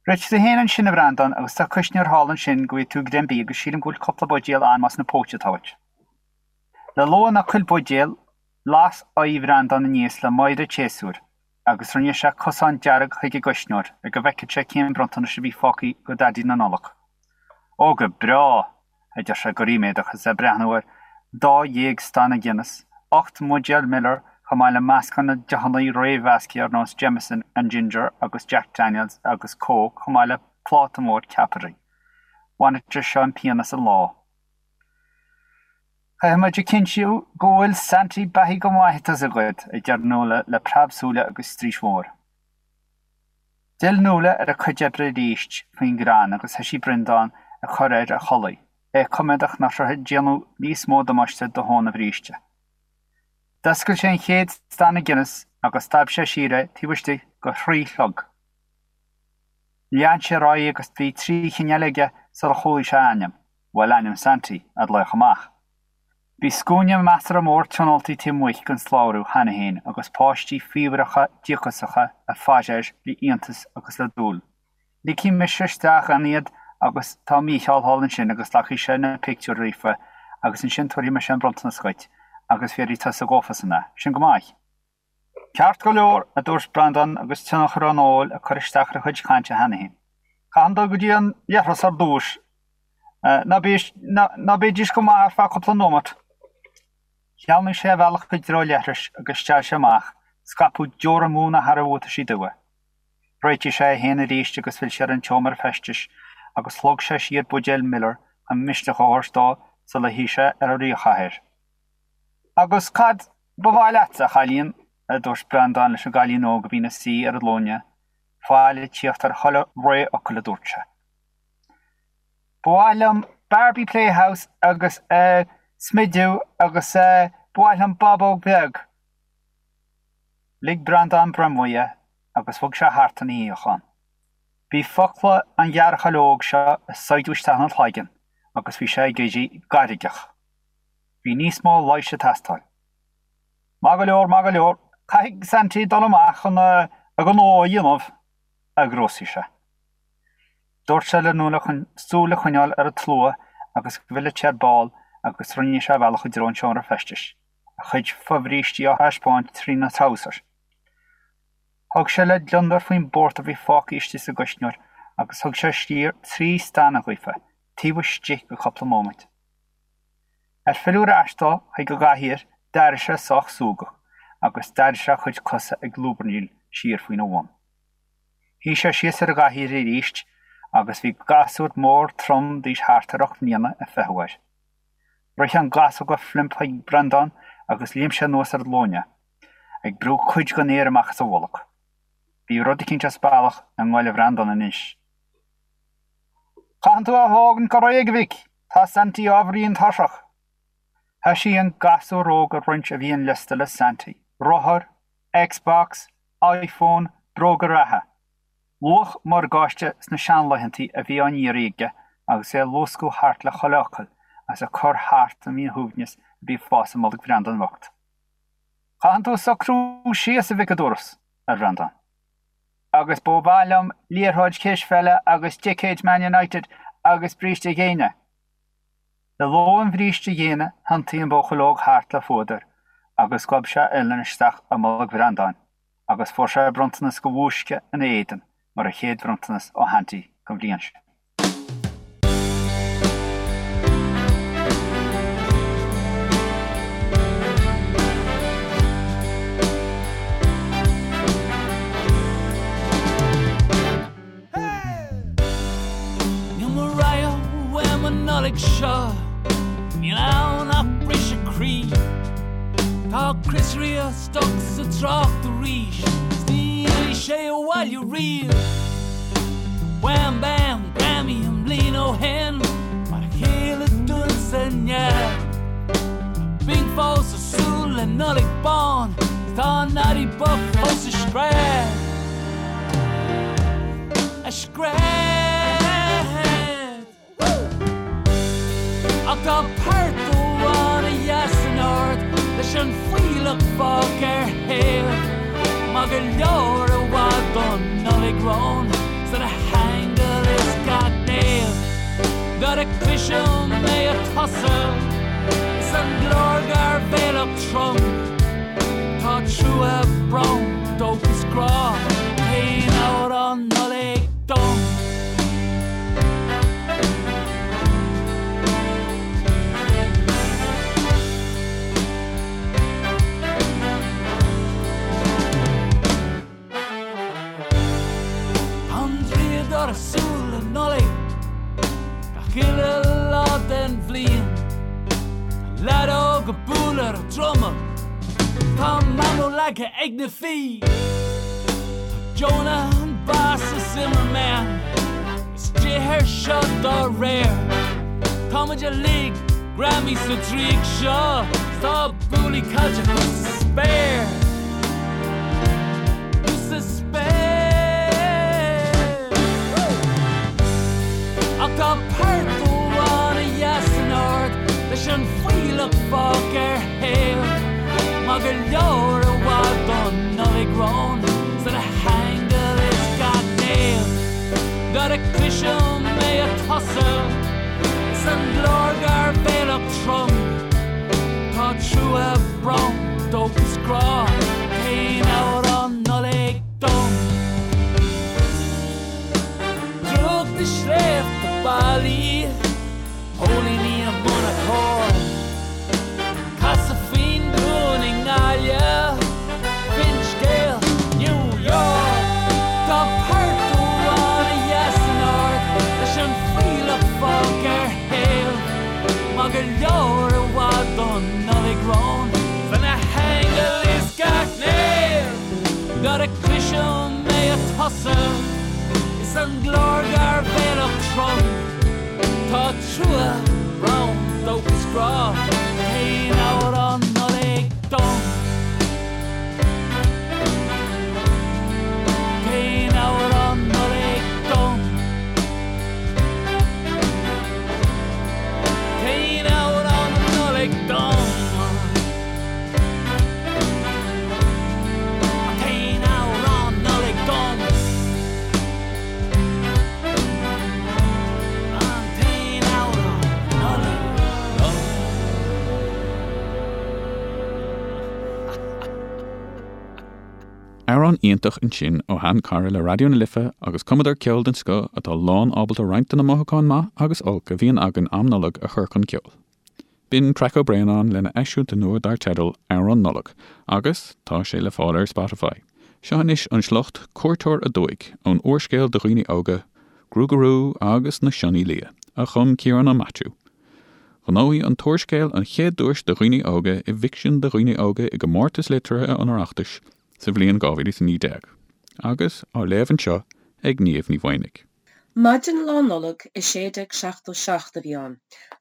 Réitigh tú féin ansin, a Bhreandáin, agus tá cuisneoir thall ansin go bhfaighidh tú greim bídh agus sílim go bhfuil cúpla buidéal ann más na póite atá uait. Le lua ná cuil buidéal, las aghaidh Bhreandáin aníos le meidhre an tséasúir agus rinne sé cosán dearg chuig an gcuisneoir le go bhfeicfeadh sé cén bronntanais a bhí fágtha do Dhaidí na Nollag. Ó go breá! a deir sé go ríméadach agus é ag breathnú ar 12 stana Guinness, 8 mbuidéal Miller chomh maith le meascán de deochanna réamh-mheasctha ar nós Jameson and Ginger agus Jack Daniels agus Coke chomh maith le pláta mór ceapairí. Bhainfeadh sé seo an pian as an lá. Caithfidh muid a chinntiú go bhfuil Santy beathaithe go maith, tá's agat, a deir Nuala le preab súile agus straois mhór. D'fhill Nuala ar a cuid oibre arís faoin gcrann agus thoisigh Breandán ag cur air a chulaith, é coimeádach nach raibh ag déanamh níos mó damáiste do thóin a bhríste. D'oscail sé an chéad stana Guinness agus stad sé siar é taobh istigh de thrí shlog. Lean sé ar aghaidh agus bhí trí chinn eile aige sular chualaigh sé a ainm, bhuel ainm Santy, á ghlaoch amach. Bhí scuaine measartha mór tionóltaí taobh amuigh den slabhra cheana féin agus páistí faobhracha díocasacha ag faire air le iontas agus le dúil. Ligfidh mise isteach ann iad agus tá Mícheál thall ansin agus glacfaidh sé na pictiúir daofa agus ansin tabharfaidh mise an bronntanas dhuit agus bhéarfaidh tusa dhófasan é. Sin go maith. Ceart go leor, a dúirt Breandán agus tionchar an óil ag cur isteach ar a chuid cainte cheana féin. Caithfidh dul go dtí an leithreas ar dtús. Ná ná bídís go maith ar feadh cúpla nóimeat. Shleamhnaigh sé a bhealach i dtreo an leithris agus steall sé amach, scaipeadh deora múna thar a bhuataisí dubha. Réitigh sé é féin arís agus phill sé ar an tseomra feistis agus shlog sé siar buidéal Miller chun misneach a thabhairt dó sula shuigh sé ar an ríchathaoir. Agus cad ba mhaith leatsa, a chailín? a dúirt Breandán leis an gcailín óg a bhí ina suí ar a ghlúine, faill ag tíocht ar chuile réamhfhocal a dúirt sé. Ba mhaith liom Barbie Playhouse agus, eh, smideadh agus, eh, ba mhaith liom bábóg bheag. Lig Breandán broim uaidh agus bhog sé thart ina shuíochán. Bhí focla an ghearrchaill óg seo ag saighdeadh isteach ina chloigeann agus bhí sé ag éirí gairgeach. Bhí níos mó leighis ag teastáil. Maith go leor, maith go leor, caithfidh Santy dul amach chun a ghnó a dhéanamh, a ghrúsaigh sé. Dúirt sé le Nuala chun súil a choinneáil ar an tslua agus go bhfillfeadh sé ar ball agus rinne sé a bhealach i dtreo an tseomra feistis, a chuid fobhrístí á thaispeáint trína threabhsar. Thug sé le gliondar faoin bpórtar a bhí fágtha istigh sa gcuisneoir agus thug sé siar trí stana dhaofa, taobh istigh de chúpla móimint. Ar filleadh ar ais dó chuig an gcathaoir, d'airigh sé sách súgach agus d'airigh sé a chuid cosa ag lúbarnaíl siar faoina bhun. Shuigh sé síos ar an gcathaoir arís agus bhí gasúr mór trom d'aois thart ar ocht mbliana ag feitheamh air. Rith an gasúr go flimp chuig Breandán agus léim sé anuas ar a ghlúine, ag brú cuid den aer amach as a bholg. Bhí rud eicínt as bealach i ngoile Bhreandáin anois. Caitheann tú a thógaint go réidh, a mhic! Tá Santy ábhairín tuirseach. Thoisigh an gasúr óg ag roinnt a mhianliosta le Santy, rothar, Xbox, iPhone, bróga reatha. Luach morgáiste sna seanlaethantaí a bhí á n-iarraidh aige agus é ag luascadh thart le chuile fhocal agus ag cur thart an mhíshuaimhneas a bhí ag fás i mbolg Bhreandáin bhoicht. Caitheann tú socrú síos, a mhic, a dúras, ar Bhreandán. Agus ba mhaith liom liathróid cispheile agus ticéid Man United agus bríste géine. Le ló an bhríste ghéine thiontaigh an buachaill óg thart le fuadar agus ghob sé a uillinn isteach i mbolg Bhreandáin agus fuair sé bronntanas de bhúisce ina éadan mar a chéad bhronntanas ó Shaintí don bhliain sin. Níl Mariah uaim an Nollaig seo, níl ann ach briseadh croí. Tá Chris Rea stuck sa trácht arís, 's ní fhillfidh sé abhaile riamh. Wham Bam Grammy an bhliain ó shin, mar a chéile dúinn sa neamh. Tá Bing fós ag súil le Nollaig bán, 's tá Noddy bocht fós ag scread. Ag scread. Ach tá port amháin a sheas in ard leis an fuílleach fágtha ar thaobh. Maith go leor i bhfad don Nollaig romhainn 's do na haingil is gach naomh. Nuair a chloisim é ag tosú is an glór gairbhéalach trom. Tá trua, brón, dóchas, grá, t-aon amhrán Nollag dom. Tá an draíodóir ag súil le Nollaig gach uile lá den bhliain. Tá leaid óg ag bualadh ar an druma, tá Mamó leagtha ag na fiaigh. Tá Jonah an Boss is Zimmerman istigh air seo dá réir. Tá muid uilig greamaithe sa draíocht seo, 's tá buailí caide thuas sa spéir. Thuas sa spéir. Ach tá port amháin a sheas in ard leis an fuílleach fágtha ar thaobh. Maith go leor i bhfad don Nollaig romhainn 's do na haingil is gach naomh. Nuair a chloisim é ag tosú is an glór gairbhéalach trom. Tá trua, brón, dóchas, grá, t-aon amhrán Nollag dom. Drúcht na sléibhte ballaí, póilíní i mbun a cóir. Casadh faoin dún i nGaillimh, finscéal New York. Tá port amháin a sheas in ard leis an fuílleach fágtha ar thaobh. Maith go leor i bhfad don Nollaig romhainn 's do na haingil is gach naomh. Nuair a chloisim é ag tosú is an glór gairbhéalach trom. Tá trua, brón, dóchas, grá, t-aon amhrán Nollag dom. T-aon amhrán Nollag dom. T-aon amhrán Nollag dom. T-aon amhrán Nollag dom. An t-aon amhrán Nollag dom. Amhrán iontach ansin ó shean-chara le Raidió na Life agus cumadóir ceoil den scoth atá lán ábalta roinnt de na mothúcháin maith agus olc a bhíonn againn am Nollag a chur chun ceoil. B'in Traic Ó Braonáin lena eisiúint nua dar teideal Amhrán Nollag agus tá sé le fáil ar Spotify. Seo anois an sliocht Cuairteoir Aduaidh ón úrscéal do dhaoine óga Gruagarú agus na Sionnaigh Liath a chum Ciarán Ó Maitiú. Ghnóthaigh an t-úrscéal an chéad duais do dhaoine óga i bhficsean do dhaoine óga i gComórtas Liteartha an Oireachtais sa bhliain 2019 agus á léamh anseo ag Niamh Ní Mhaonaigh. Maidin Lá Nollag i 1677 a bhí ann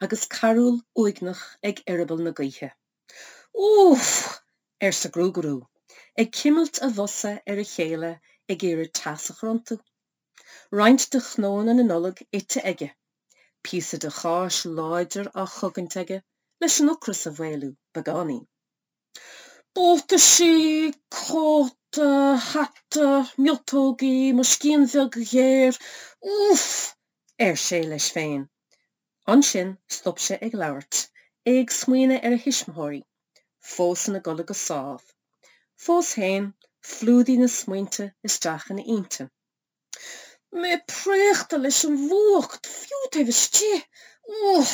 agus carúl uaigneach ag eireaball na gaoithe. Úff! arsa Gruagarú, ag cimilt a bhosa ar a chéile ag iarraidh teas a chur iontu. Roinnt de chnónna na Nollag ite aige, píosa de cháis láidir á chogaint aige leis an ocras a mhaolú beagáinín. Buataisí, cóta, hata, miotógaí, mo scian bheag ghéar, úff! ar sé leis féin. Ansin stop sé ag labhairt, é ag smaoineamh ar a thuismitheoirí, fós ina gcodladh go sámh. Fós féin, phlúdaigh na smaointe isteach ina intinn. Mé préachta leis an bhfuacht, fiú taobh istigh. Úff!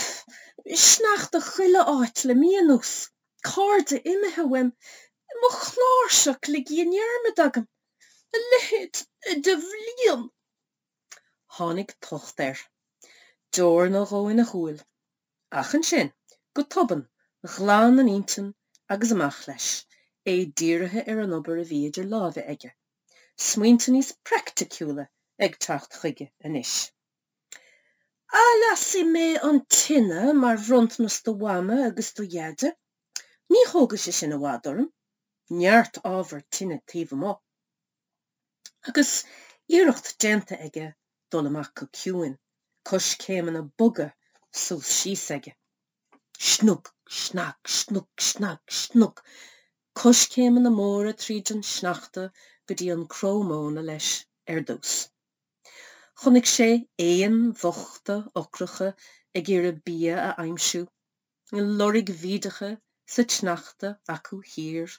Sneachta chuile áit le mí anuas. Cairde imithe uaim. Mo chláirseach ligthe i ndearmad agam. A leithéid de bhliain! Tháinig tocht air. Deor nó dhó ina shúil. Ach ansin, go tobann, ghlan an intinn agus amach leis, é dírithe ar an obair a bhí idir lámha aige. Smaointe níos praiticiúla ag teacht chuige anois. Athlasfaidh mé an tine mar bhronntanas do Mhama agus do Dheaide. Ní thógfaidh sé sin i bhfad orm. Neart ábhar tine taobh amuigh. Agus iarracht déanta aige dul amach go ciúin, coiscéimeanna boga suas síos aige. Snug, snag, snug, snag, snug. Coiscéimeanna móra tríd an sneachta go dtí an cró móna leis ar dtús. Chonaic sé éin bhochta ocracha ag iarraidh bia a aimsiú, loirg bhídeacha sa tsneachta acu thiar,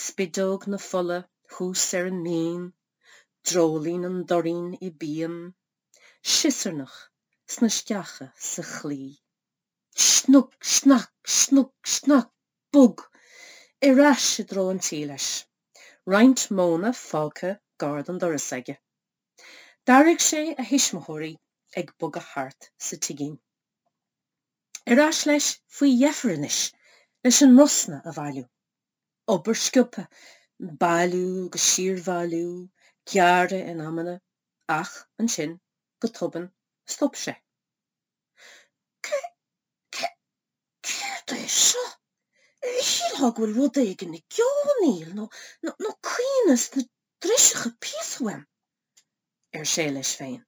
spideog na fola thuas ar an mbinn, dreoilín an doirín i bpian, siosarnach sna sceacha sa chlaí. Snug, snag, snug, snag, bog! Ar ais i dtreo an tí leis. Roinnt móna fágtha gar don doras aige. D'airigh sé a thuismitheoirí ag bogadh thart sa tigín. Ar ais leis faoi dheifir anois leis an mbrosna a bhailiú. Obair sciobtha, bailiú agus siarbhailiú, gearradh in amanna, ach ansin, go tobann, stop sé. Cé, cé, céard é seo? Shílfeá go bhfuil rud éigin ag geonaíl nó, nó, nó caoineadh sna driseacha píosa uaim, ar sé leis féin.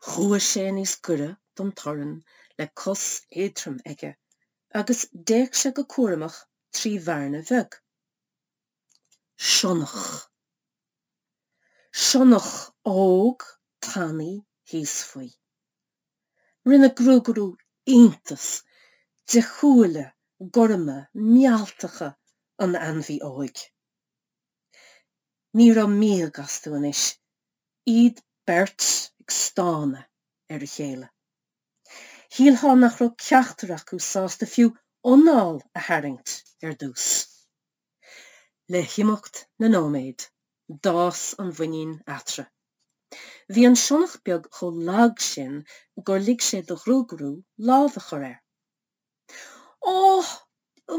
Chuaigh sé níos gaire don torann le cos éadrom aige agus d'fhéach sé go cúramach trí bhearna bheag. Sionnach. Sionnach óg tanaí thíos faoi. Rinne Gruagarú iontas de shúile gorma mealltacha an ainmhí óig. Ní raibh míog astu anois, iad beirt ag stánadh ar a chéile. Shílfeá nach raibh ceachtar acu sásta fiú anáil a tharraingt ar dtús. Le himeacht na nóiméad, d'fhás an mhuinín eatarthu. Bhí an sionnach beag chomh lag sin gur lig sé do Ghruagarú lámh a chur air. Ó,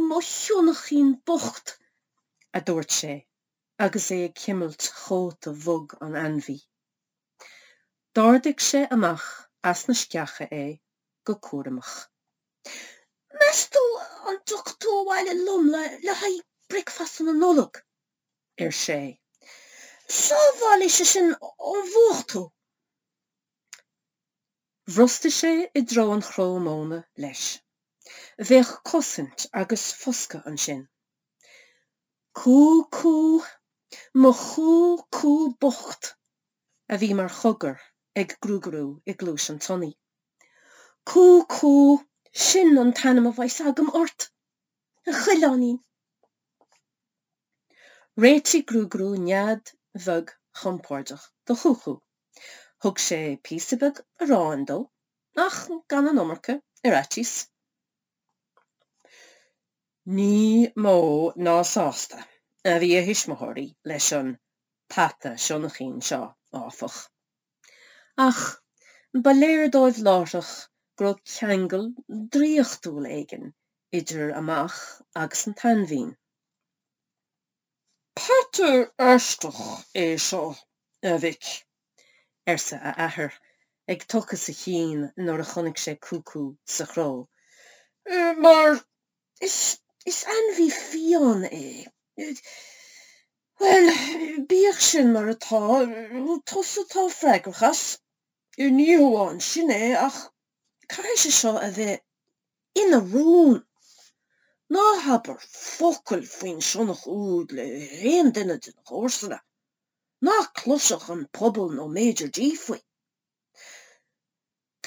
mo shionnachín bocht! a dúirt sé agus é ag cuimilt chóta bhog an ainmhí. D'ardaigh sé amach as na sceacha é go cúramach. Meas tú an dtiocfaidh tú abhaile liom le haghaidh bricfeasta na Nollag? ar sé. Sábhálfaidh sé sin ón bhfuacht thú. Bhrostaigh sé i dtreo an chró móna leis. Bheadh cosaint agus foscadh ansin. Cú cú, mo chú cú bocht! a bhí mar chogar ag Gruagarú i gcluais an tsionnaigh. Cú cú, sin an t-ainm a bheas agam ort, a choileáinín. Réitigh Gruagarú nead bheag chompordach do Chúcú. Thug sé píosa beag aráin dó, ach gan an iomarca, ar fhaitíos. Ní mó ná sásta a bhí a thuismitheoirí leis an peata sionnaichín seo, áfach. Ach ba léir dóibh láithreach go raibh ceangal draíochtúil éigin idir a mac agus an t-ainmhín. Peata aisteach é seo, a mhic, arsa a athair, ag tochas a chinn nuair a chonaic sé Cúcú sa chró, mar is, is ainmhí fiáin é. Bhuel, bíodh sin mar atá, tusa atá freagrach as. Ní hamháin sin é, ach caithfidh sé seo a bheith ina rún. Ná habair focal faoin sionnach úd le haon duine de na comharsana. Ná cloisfeadh an pobal nó Major D faoi.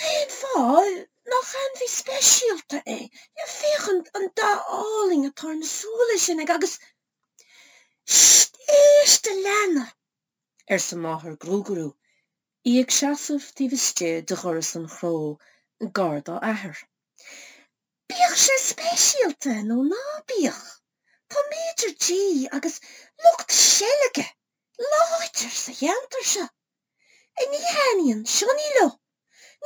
Cén fáth nach ainmhí speisialta é? Féach an dath álainn atá ar na súile sin aige agus. Sst! Éist, a leana! arsa máthair Ghruagarú, í ag seasamh taobh istigh de dhoras an chró gar dá athair. Bíodh sé speisialta nó ná bíodh, tá Major G agus lucht seilge láidir sa cheantar seo. Ní thaitníonn sionnaigh leo.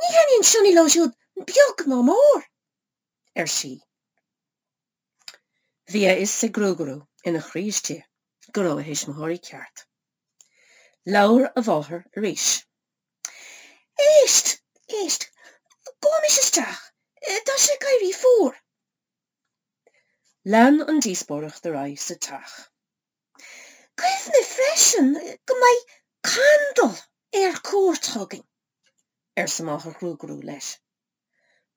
Ní thaitníonn sionnaigh leo siúd beag ná mór, ar sí. Bhí a fhios ag Gruagarú ina chroí istigh go raibh a thuismitheoirí ceart. Labhair a mháthair arís. Éist! Éist! Gabhaimis isteach! Tá sé ag éirí fuar! Lean an díospóireacht ar aghaidh sa teach. Cuimhnigh freisin go mbeidh Candal ar cuairt chugainn, arsa máthair Ghruagarú leis.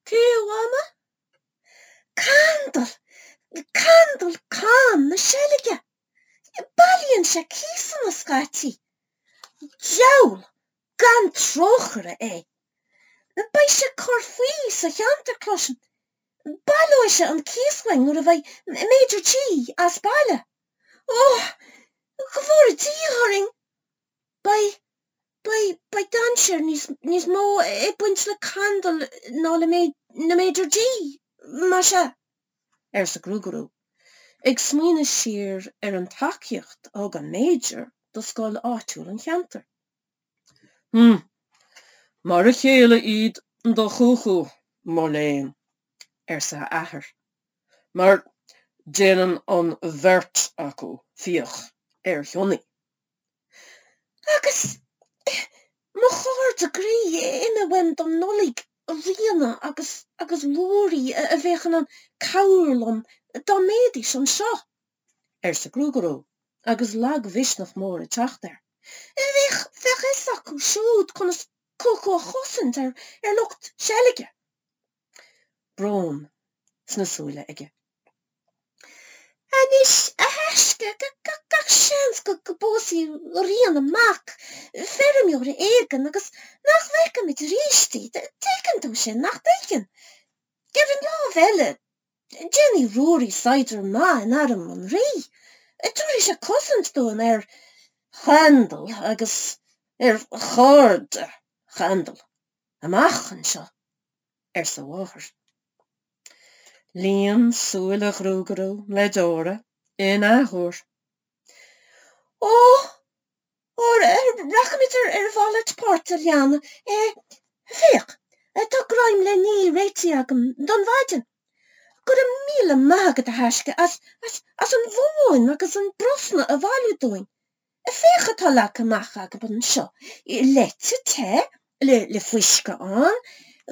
Cé, a Mhama? Candal! Candal Cam na Seilge! Bailíonn sé cíosanna scaití. Diabhal gan trócaire é! Beidh sé ag cur faoi sa cheantar, cloisim. Baileoidh sé an cíos uainn nuair a bheidh Major G as baile. Ó, go bhfóire Dia orainn! Beidh, beidh, beidh dainséar níos, níos mó ag baint le Candal ná le na Major G, más ea, arsa Gruagarú, ag smaoineamh siar ar an tacaíocht a thug an Major do scoil áitiúil an cheantair. Hm, mar a chéile iad do Chúchú, mo léan, arsa a athair. mar déanann an bheirt acu fiach ar shionnaigh. Agus mo chairde groí imithe uaim don Nollaig, Ríona agus agus Ruairí a bheadh in ann cabhrú liom dá mbeidís anseo, arsa Gruagarú agus lagmhisneach mór ag teacht air. Bheadh bheadh a fhios acu siúd conas Cúchú a chosaint ar ar lucht seilge. Brón sna súile aige. Anois, a thaisce, gach seans go bpósfaidh Ríona mac feirmeora éigin agus nach bhfeicfimid arís í. Tuigeann tú sin, nach dtuigeann? Ar an lámh eile, déanfaidh Ruairí saighdiúir maith in arm an Rí. Tabharfaidh sé cosaint dúinn ar Chandal agus ar chairde Chandal. Amach anseo, arsa a mháthair. Líon súile Ghruagarú le deora in athuair. Ó! Ó, rachaimid ar a mhalairt páirt, a leana. Féach, tá greim le ní réitithe agam don mhaidin. Go raibh míle maith agat, a thaisce, as, as, as an mhóin agus an brosna a bhailiú dúinn. Féach atá leagtha amach agam anseo, leite te le fuisce ann,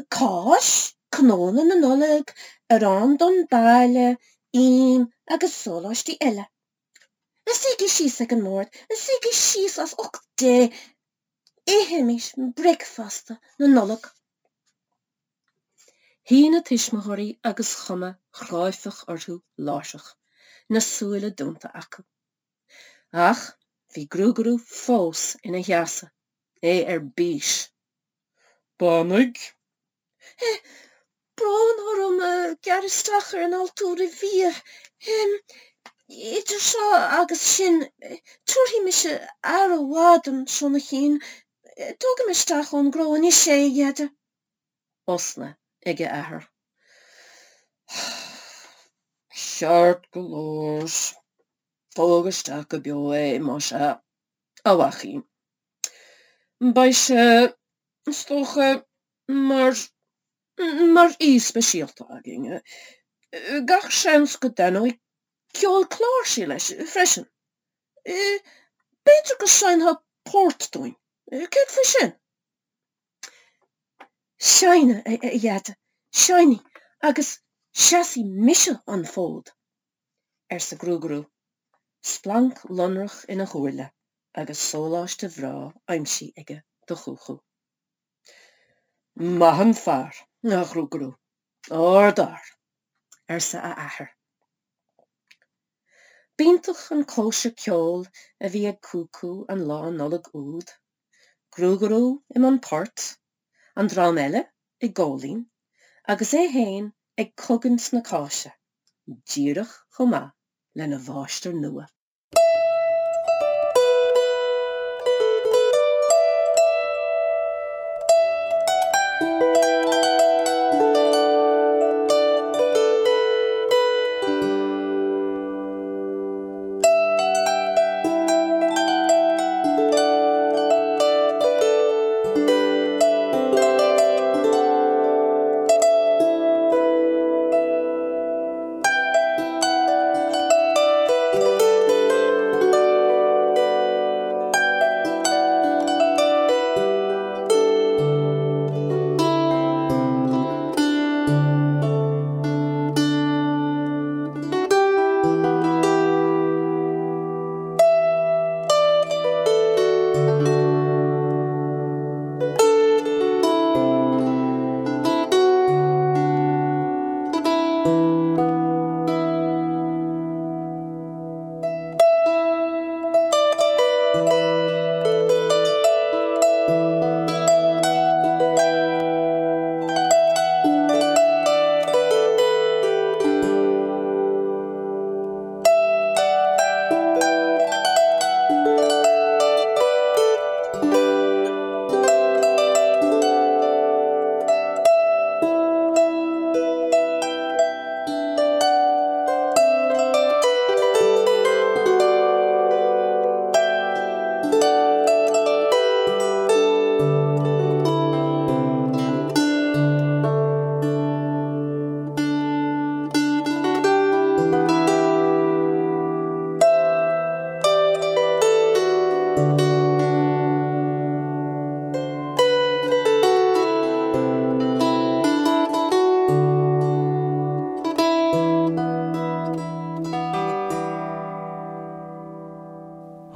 cáis, cnónna na Nollag, arán donn baile, im agus sóláistí eile. Suígí síos ag an mbord, suígí síos as ucht Dé, ithimis bricfeasta na Nollag. Shuigh na tuismitheoirí agus cuma chráifeach orthu láithreach, na súile dúnta acu. Ach bhí Gruagarú fós ina sheasamh, é ar bís. Beannaigh. Brón orm gearradh isteach ar an altóir bhia. Idir seo agus sin, tabharfaidh mise aire mhaith don sionnaichín. Tógfaidh mé isteach ón gcró anois é, a Dheaide. Osna ag a athair. Ceart go leor. Tóg isteach go beo é, más ea, a mhaicín. Beidh sé, is dócha, mar, mar aoi speisialta againn. Gach seans go dtaitneoidh ceol cláirsí leis freisin. B'fhéidir go seinnfeá port dúinn. Céard faoi sin? Seinnfidh, a Dheaide, seinnfidh agus seasfaidh mise an fód, arsa Gruagarú, splanc lonrach ina shúile agus sóláiste bhreá aimsithe aige do Chúchú. Maith an fear, a Ghruagarú, ardfhear, arsa a athair. B'iontach an cóisir ceoil a bhí ag Cúcú an lá Nollag úd. Gruagarú i mbun poirt, an dream eile ag góilín, agus é fhéin ag cogaint na cáise, díreach chomh maith lena mháistir nua.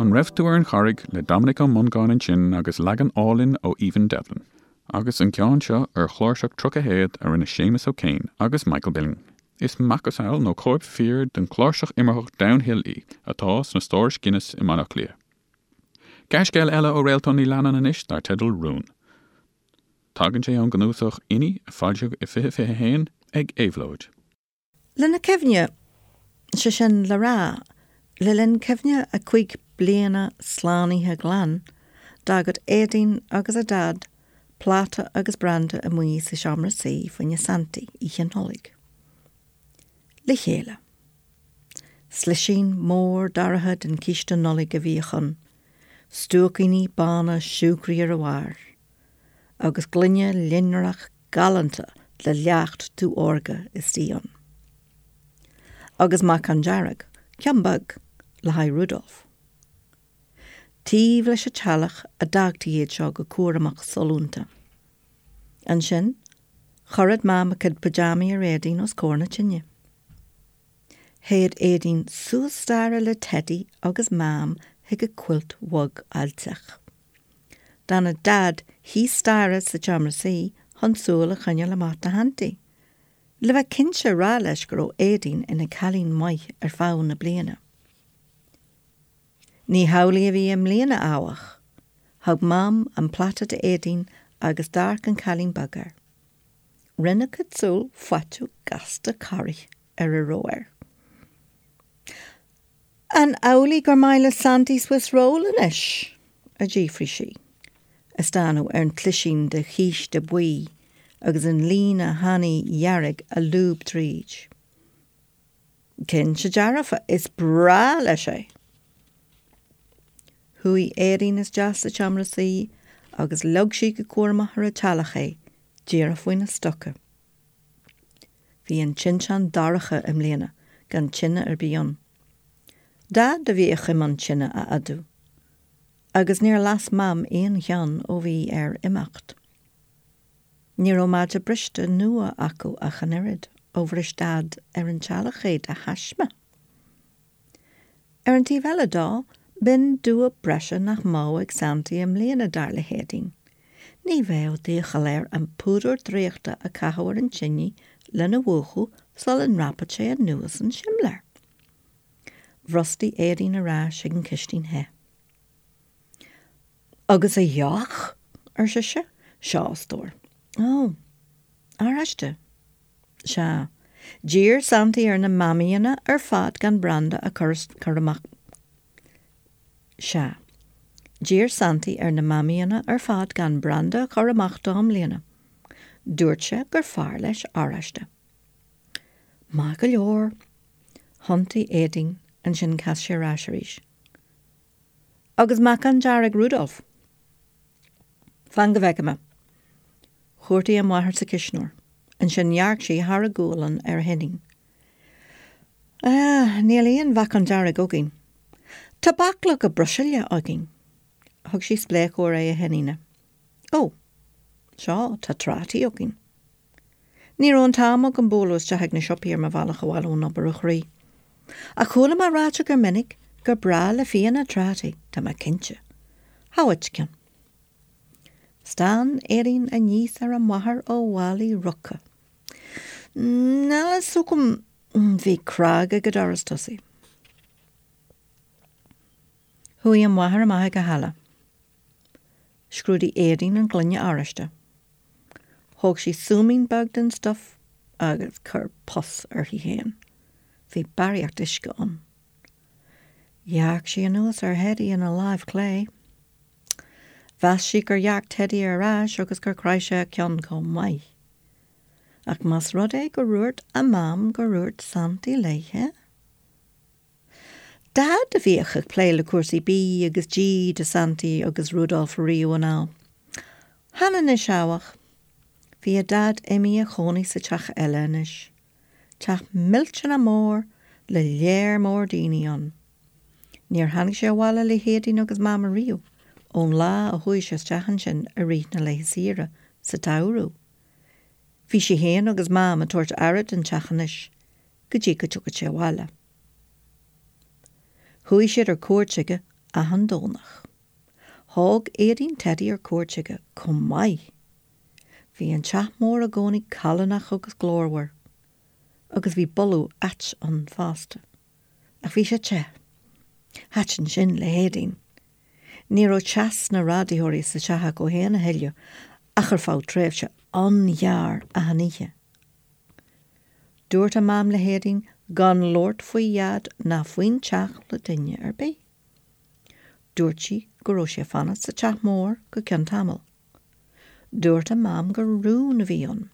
An Raibh Tú ar an Charraig le Dominic Ó Mongáin ansin agus leagan álainn ó Aoibhinn Devlin. Agus an ceann seo ar chláirseach 30 théad a rinne Séamus O'Kane agus Michael Billing. Is macasamhail nó cóip fíor den chláirseach imearthach Downhill í, atá sna stórais Guinness i mBaile Átha Cliath. Gearrscéal eile ó Réaltán Ní Leannáin anois dar teideal Rún. Tagann sé ón gcnuasach Inní a foilsíodh i 2021 ag Éabhlóid. Lena cuimhne, sé sin le rá, le linn cuimhne a cúig bliana slánaithe glan, d'fhágadh Éadaoin agus a Daid pláta agus branda amuigh sa seomra suí fá choinne Santaí Oíche Nollag. Le chéile. Slisín mór dorcha den chíste Nollag a bhíodh ann, stuaicíní bána siúcraí ar a bharr, agus gloine loinnreach galánta le leacht dubh órga istigh ann. Agus meacan dearg, ceann beag, le haghaidh Rudolf. Taobh leis an teallach a d'fhágtaí iad seo go cúramach sollúnta. Ansin, chuireadh Mam a cuid pajamaí ar Éadaoin os comhair na tine. Théadh Éadaoin suas staighre le Teidí agus Mam chuig a cuilt bhog fháilteach. D'fhanadh Daid thíos staighre sa tseomra suí chun súil a choinneáil amach do Shantaí, le bheith cinnte a rá leis go raibh Éadaoin ina cailín maith ar feadh na bliana. Ní hamhlaidh a bhí i mbliana, áfach. Thug Mam an pláta d'Éadaoin agus d'amharc an cailín beag air. Rinne a cuid súl faiteadh gasta corraithe ar a raibh air. An amhlaidh gur maith le Santaí Swiss Roll anois? a d'fhiafraigh sí, ag stánadh ar an tslisín de chíste buí agus an líne thanaí dhearg a lúb tríd. Cinnte dearfa, is breá leis é! Chuaigh Éadaoin isteach sa tseomra suí agus leag sí go cúramach ar an teallach é, díreach faoina stoca. Bhí an tinteán dorcha i mbliana, gan tine ar bith ann. Daid a bhíodh i mbun tine a fhadú. Agus níor las Mam aon cheann ó bhí air imeacht. Ní raibh maide briste nua acu ach an oiread, ó bhris Daid ar an teallach é de thaisme. Ar an taobh eile dó, b'in dua breise nach mbeadh ag Santaí i mbliana, dar le hÉadaoin. Ní bheadh d'iachall air an púdar draíochta a chaitheamh ar an tine lena mhúchadh sula ndreapfadh sé anuas an simléar. Bhrostaigh Éadaoin ar ais chuig an chistin the. Agus a dheoch? ar sise. Seo, a stór. Ó. Oráiste. Sea. D'iarr Santaí ar na Mamaíonna ar fad gan branda a chur amach. Sea. D'iarr Santaí ar na Mamaíonna ar fad gan branda a chur amach dó i mbliana. Dúirt sé gur fearr leis oráiste. Maith go leor. Thiontaigh Éadaoin, ansin chas sí ar ais arís. Agus meacan dearg Rudolf? Fan go bhfeice mé. Chuartaigh a máthair sa chuisneoir. Ansin dhearc sí thar a gualainn ar a hiníon. Ah, níl aon mheacan dearg againn. Tá bachlóga bruiseála againn. Thug sí spléachadh ar aghaidh a hiníne. Ó, sea, tá trátaí againn. Ní raibh an t-am agam bualadh isteach ag na siopaí ar mo bhealach abhaile ón obair, a chroí. Ach chuala mé ráite gur minic gur breá le fianna trátaí, tá mé cinnte. Seo dhuit ceann. Stán Éadaoin aníos ar a máthair ó mhálaí roctha. Níl a fhios agam, bhí cnag ag an doras tosaigh. Chuaigh a máthair amach ag an halla. Scrúdaigh Éadaoin an gloine oráiste. Thóg sí súimín beag den stuif agus chuir pus uirthi féin. Bhí barraíocht uisce ann. Dhearc sí anuas ar Theidí ina láimh chlé. Mheas sí gur dhearc Teidí ar ais agus gur chroith sé a cheann chomh maith. Ach más rud é gur dhúirt a Mam gur dhúirt Santaí léithe? Daid a bhíodh ag plé le cúrsaí bídh agus dí do Santaí agus Rudolf riamh anall. Chan anois áfach. Bhí a Daid imithe a chónaí sa teach eile anois. Teach millteanach mór le léar mór daoine ann. Níor tháinig sé abhaile le hÉadaoin agus Mam ariamh ón lá a chuaigh sé isteach ansin i rith na laetha saoire sa tsamhradh. Bhí sé féin agus Mam ag tabhairt aire don teach anois go dtí go dtiocfadh sé abhaile. Chuaigh siad ar cuairt chuige achan Domhnach. Thóg Éadaoin Teidí ar cuairt chuige chomh maith. Bhí an teach mór i gcónaí callánach agus glórmhar. Agus bhí boladh ait ann fosta. Ach bhí sé te. Thaitin sin le hÉadaoin. Ní raibh teas na radaitheoirí sa teach acu féin a thuilleadh ach ar feadh tréimhse an-ghearr achan oíche. Dúirt a Mam le hÉadaoin gan labhairt faoi Dhaid ná faoin teach le duine ar bith. Dúirt sí go raibh sé ag fanacht sa teach mór go ceann tamaill. Dúirt a Mam gur rún a bhí ann,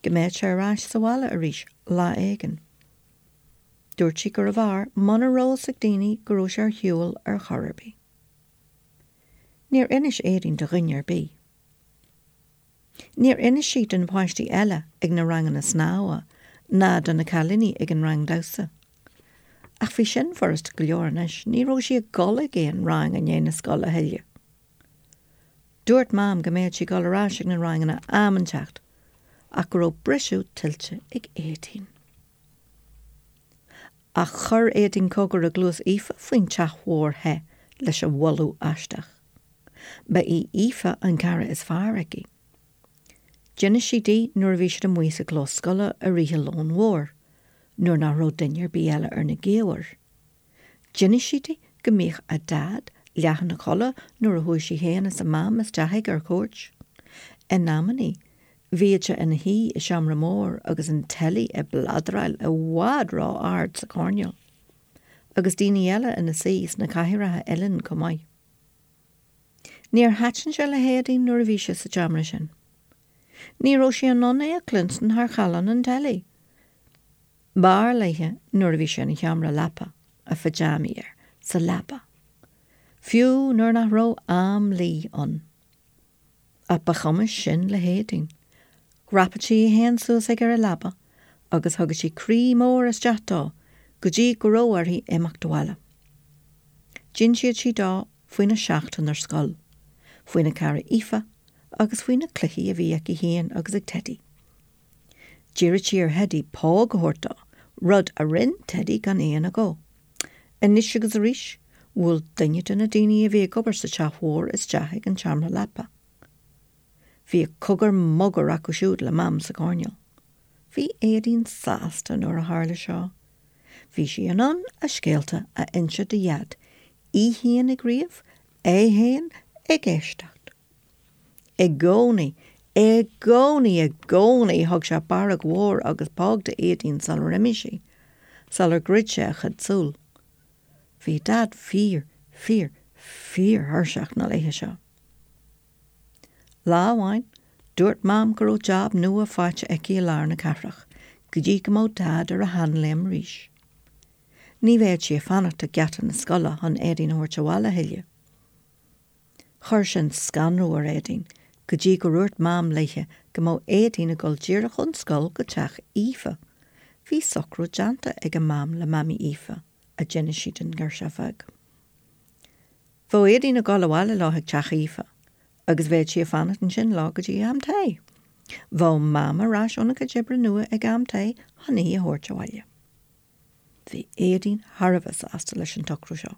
go mbeadh sé ar ais sa bhaile arís lá éigin. Dúirt sí gurbh fhearr muna raibh fhios ag daoine go raibh sé ar shiúl ar chor ar bith. Níor inis Éadaoin do dhuine ar bith. Níor inis sí do na páistí eile ag na ranganna snámha ná do na cailíní ag an rang damhsa. Ach bhí sin furasta go leor anois, ní raibh sí ag dul ag aon rang i ndiaidh na scoile a thuilleadh. Dúirt Mam go mbeadh sí ag dul ar ais ag na ranganna am inteacht ach go raibh briseadh tuillte ag Éadaoin. Ach chuir Éadaoin cogar i gcluas Aoife faoin teach mhór the leis an bholadh aisteach. Ba í Aoife an cara is fearr aici. D'inis sí di nuair a bhí siad amuigh sa gclós scoile i rith an lóin mhóir, nuair nach raibh duine ar bith eile ar na gaobhair. D'inis sí di go mbíodh a Daid leath ina chodladh nuair a chuaigh sí féin is a Mam isteach chuige ar cuairt. In amannaí, bhíodh sé ina shuí i seomra mór agus an teilí ag bladráil i bhfad ró-ard sa choirnéal, agus daoine eile ina suí sna cathaoireacha uilleann chomh maith. Níor thaitin sé le hÉadaoin nuair a bhí sé sa tseomra sin. Ní raibh sí in ann é a chluinstin thar challán an teilí. B'fhearr léithe nuair a bhí sé ina sheomra leapa, a phijeámaí air, sa leaba. Fiú nuair nach raibh am luí ann. Ach ba chuma sin le hÉadaoin. Dhreapadh sí í féin suas aige ar an leaba agus thugadh sí croí mór isteach dó go dtí go raibh uirthi imeacht abhaile. D'insíodh sí dó faoina seachtain ar scoil, faoina cara Aoife agus faoi na cluichí a bhí aici féin agus ag Teidí. D'iarradh sí ar Theidí póg a thabhairt dó, rud a rinn Teidí gan aon agó. Anois agus arís, bhuail duine de na daoine a bhí ag obair sa teach mhór isteach ag an tseomra leapa. Bhíodh cogar mogar acu siúd le Mam sa choirnéal. Bhí Éadaoin sásta nuair a tharla seo. Bhí sí in ann a scéalta a inse do Dhaid, í fhéin ag ríomh, é fhéin ag éisteacht. I gcónaí, i gcónaí, i gcónaí thug sé barróg mhór agus póg d'Éadaoin sular imigh sí, sular dhruid sé a chuid súl. Bhí Daid fíor, fíor, fíor-thuirseach na laethe seo. Lá amháin, dúirt Mam go raibh jab nua faighte aici i lár na cathrach, go dtí go mbeadh Daid ar a sheanléim arís. Ní bheadh sí ag fanacht ag geata na scoile chun Éadaoin a thabhairt abhaile a thuilleadh. Chuir sin scanradh ar Éadaoin go dtí gur dhúirt Mam léithe go mbeadh Éadaoin ag dul díreach ón scoil go teach Aoife. Bhí socrú déanta ag a Mam le Mamaí Aoife, a d'inis sí don ghirseach bheag. Bheadh Éadaoin ag dul abhaile leo chuig teach Aoife agus bheadh sí ag fanacht ansin leo go dtí am tae. Bheadh Mam ar ais óna cuid oibre nua ag am tae chun í a thabhairt abhaile. Bhí Éadaoin thar a bheith sásta leis an tsocrú seo.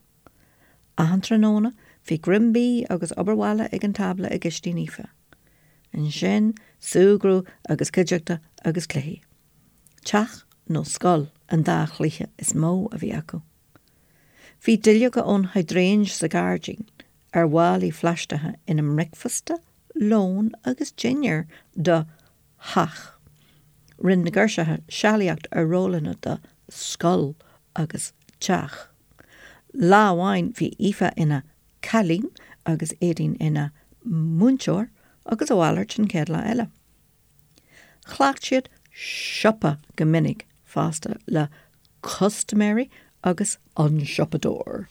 Achan tráthnóna, bhí greim bídh agus obair bhaile ag an tábla i gcistín Aoife. Ansin, súgradh agus cuideachta agus cluichí. Teach nó scoil an dá chluiche is mó a bhí acu. Bhí duilleoga ón hydrangea sa ghairdín ar mhálaí phlaisteacha ina mbricfeasta, lón agus dinnéar do theach. Rinne na girseacha sealaíocht ar rólanna do scoil agus teach. Lá amháin bhí Aoife ina cailín agus Éadaoin ina múinteoir agus a mhalairt an chéad lá eile. Chleacht siad siopa go minic fosta le custaiméirí agus an siopadóir.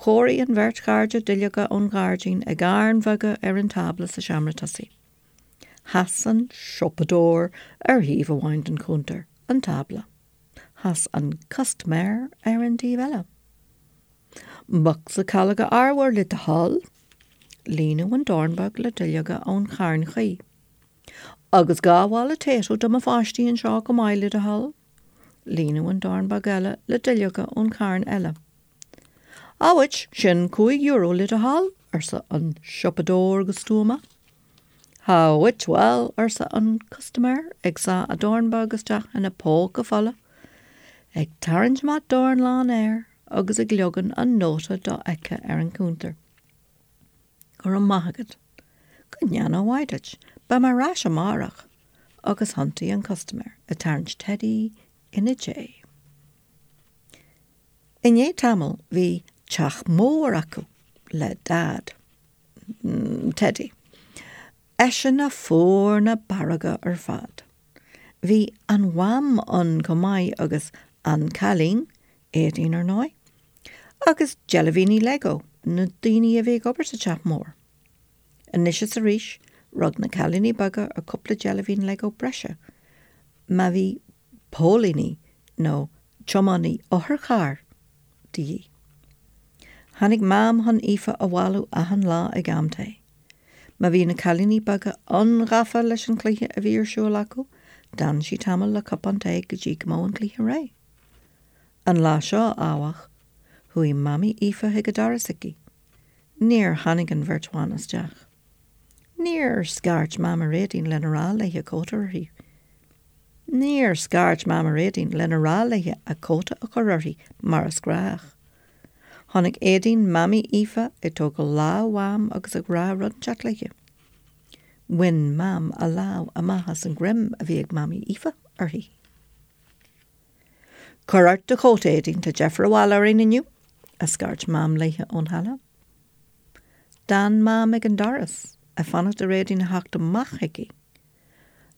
Chóirigh an bheirt chairde duilleoga ón ghairdín i gcairn bheaga ar an tábla sa seomra tosaigh. Sheas an siopadóir ar thaobh amháin den chuntar, an tábla. Sheas an custaiméir ar an taobh eile. Bocsa calóga arbhair le do thoil. Líonadh an dorn beag le duilleoga ón charn chuí. Agus 2 mhála Tayto do mo pháistí anseo chomh maith le do thoil. Líonadh an dorn beag eile le duilleoga ón charn eile. Awit, sin €5 le do thoil, arsa an siopadóir go stuama. Awit, bhuel, arsa an custaiméir, ag sá a dhorn beag isteach ina phóca fola, ag tarraingt amach dorn lán aeir agus ag leagan an nóta dofheicthe ar an chuntar. Go raibh maith agat. Go ndéana a mhaith duit. Beidh mé ar ais amárach. Agus thiontaigh an custaiméir, ag tarraingt Teidí ina diaidh. I ndiaidh tamaill bhí teach mór acu le Daid. Teidí. Eisean a fuair na barróga ar fad. Bhí an Mham ann chomh maith agus an cailín, Éadaoin ar ndóigh, agus deilbhíní Lego, na daoine a bhí ag obair sa teach mór. Anois is arís, rug na cailíní beaga ar cúpla deilbhín Lego breise má bhí póilíní nó tiománaí otharchairr de dhíth. Tháinig Mam chun Aoife a bhailiú achan lá ag am tae. Má bhí na cailíní beaga an-ghafa leis an chluiche a bhí ar siúl acu, d'fhan sí tamall le cupán tae go dtí go mbeadh an cluiche réidh. An lá seo, áfach, chuaigh Mamaí Aoife chuig an doras aici. Níor tháinig an bheirt bhan isteach. Níor scairt Mam ar Éadaoin lena rá léi a cóta uirthi. Níor scairt Mam ar Éadaoin lena rá léi a cóta a chur uirthi mar is gnách. Chonaic Éadaoin Mamaí Aoife ag tógáil lámh Mham agus ag rá rud inteacht léi. Bhain Mam a lámh amach as an ghreim a bhí ag Mamaí Aoife uirthi. Cuir ort do chóta, Éadaoin, tá deifir abhaile orainn inniu, a scairt Mam léi ón halla. D'fhan Mam ag an doras, ag fanacht ar Éadaoin a theacht amach chuici.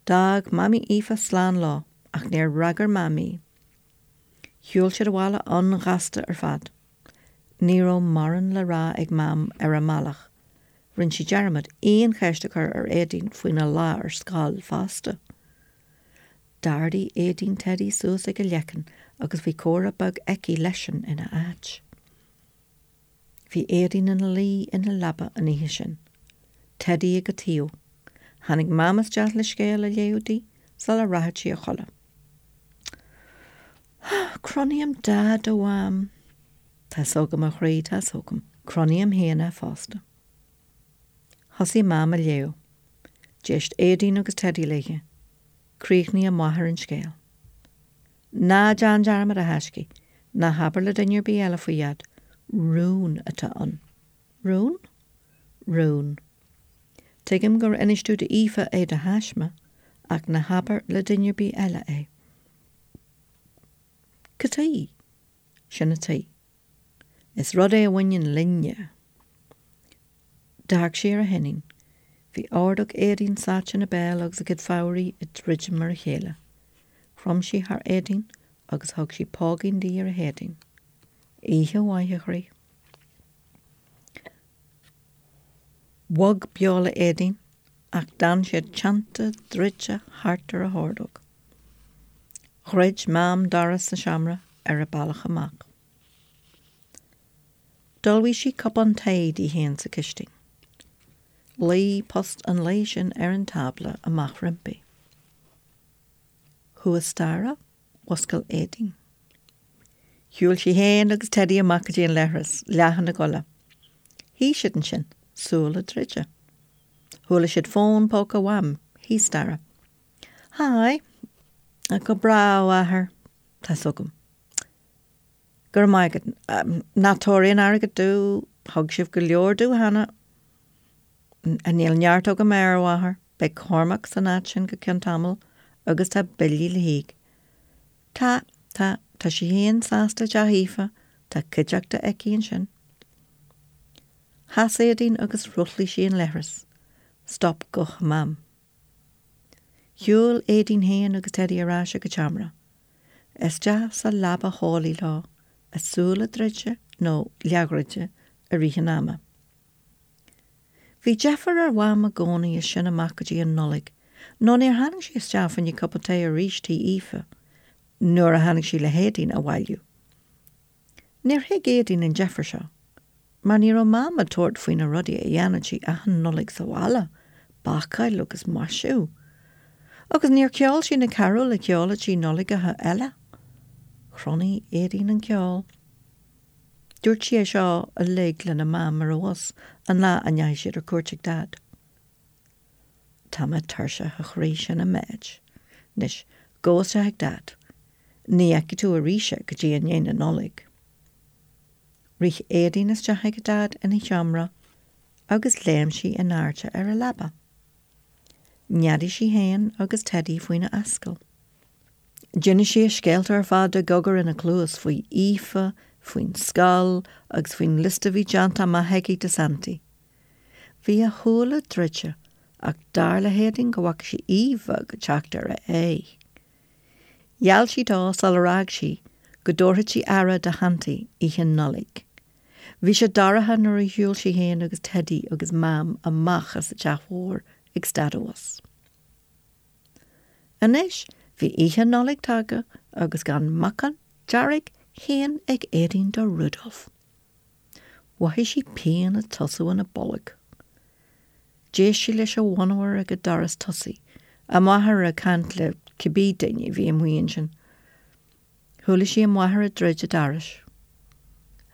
D'fhág Mamaí Aoife slán leo, ach níor fhreagair Mam í. Shiúil siad abhaile an-ghasta ar fad. Ní raibh mórán le rá ag Mam ar an mbealach. Rinne sí dearmad aon cheist a chur ar Éadaoin faoina lá ar scoil fosta. D'ardaigh Éadaoin Teidí suas ag a leiceann agus bhí comhrá beag aici leisean ina áit. Bhí Éadaoin ina luí ina leaba an oíche sin. Teidí ag a taobh. Tháinig Mam isteach le scéal a léamh di sula rachadh sí a chodladh. Cronaím Daid, a Mham. Tá's agam, a chroí, tá's agam. Cronaím féin é fosta. Thosaigh Mam a léamh. D'éist Éadaoin agus Teidí léi. Chríochnaigh a máthair an scéal. Ná déan dearmad, a thaiscidh. Ná habair le duine ar bith eile faoi, a Dhaid. Rún atá ann. Rún? Rún. Tuigim gur inis tú d'Aoife é de thaisme, ach ná habair le duine ar bith eile é. Cad chuige? Sin an tuige. Is rud é a bhaineann linne. D'amharc sí ar a hiníon. Bhí ordóg Éadaoin sáite ina béal agus a cuid fabhraí ag druidim ar a chéile. Chrom sí thar Éadaoin agus thug sí póigín di ar a héadan. Oíche mhaith, a chroí. Bhog beola Éadaoin ach d'fhan siad teannta druidte thart ar a hordóg. Dhruid Mam doras an seomra ar a bealach amach. D'ullmhaigh sí cupán tae di féin sa chistin. Luigh post an lae sin ar an tábla amach roimpi. Thuas staighre, mhuscail Éadaoin. Shiúil sí féin agus Teidí amach go dtí an leithreas, leath ina gcodladh. Shuigh siad ansin, súile druidte. Chuala siad fón póca Mham thíos staighre. Hi. Go breá, a mháthair. Tá's agam. Go raibh maith agat. Ná tabhair aon airgead domh, thug sibh go leor domh cheana. Níl neart agam air, a mháthair. Beidh Cormac san áit sin go ceann tamaill agus tá billí le híoc. Tá, tá, tá sí féin sásta i dteach Aoife, tá cuideachta aici ansin. Sheas Éadaoin agus shruthlaigh sí an leithreas. Stop guth Mham. Shiúil Éadaoin féin agus Teidí ar ais ag an tseomra. Isteach sa leaba theolaí leo, a súile druidte nó leathdhruidte i rith an ama. Bhí deifir ar Mham i gcónaí as sin amach go dtí an Nollaig, nó níor tháinig sí isteach fá choinne cupán tae arís tí Aoife nuair a tháinig sí le hÉadaoin a bhailiú. Níor thuig Éadaoin an deifir seo, mar ní raibh Mam ag tabhairt faoi na rudaí a dhéanann sí achan Nollaig sa bhaile, bácáil agus maisiú. Agus níor cheol sí na carúil a cheoladh sí Nollaigeacha eile. Chronaigh Éadaoin an ceol. Dúirt sí é seo uilig lena Mam ar an bhus an lá a ndeachaigh siad ar cuairt ag Daid. Tá mé tuirseach, a chroí, sin an méid. Anois, gabh isteach ag Daid. Ní fheicfidh tú arís é go dtí i ndiaidh na Nollag. Rith Éadaoin isteach ag a Daid ina sheomra agus léim sí in airde ar a leaba. Neadaigh sí féin agus Teidí faoina ascaill. D'inis sí a scéalta ar fad i gcogar ina cluas faoi Aoife, faoin scoil agus faoin liosta a bhí déanta amach aici do Santaí. Bhí a shúile druidte ach dar le hÉadaoin go bhfaca sí Aoife ag teacht ar a aghaidh. Gheall sí dó sular fhág sí go dtabharfadh sí aire do Shantaí oíche Nollag. Bhí sé dorcha nuair a shiúil sí féin agus Teidí agus Mam amach as an teach mhór ag stad an bhus. Anois bhí oíche Nollag tagtha agus gan meacan dearg féin ag Éadaoin do Rudolf. Mhothaigh sí pian ag tosú ina bolg. D'éist sí leis an mhonabhar ag an doras tosaigh, a máthair ag caint le cibé duine a bhí amuigh ansin. Chuala sí a máthair ag druid an dorais.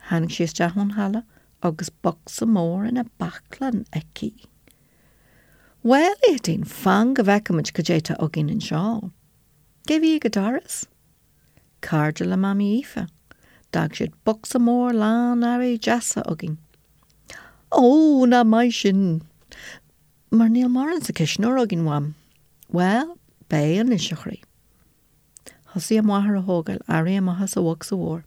Tháinig sí isteach ón halla agus bocsa mór ina baclainn aici. Bhuel, a Éadaoin, fan go bhfeicfimid cad é tá againn anseo. Cé bhí ag an doras? Cairde le Mamaí Aoife. D'fhág siad bocsa mór lán earraí deasa againn. Ó, nach maith sin! Mar níl mórán sa chuisneoir againn, Mham. Bhuel, beidh anois, a chroí. Thosaigh a máthair a thógáil earraí amach as an bhocsa mhór.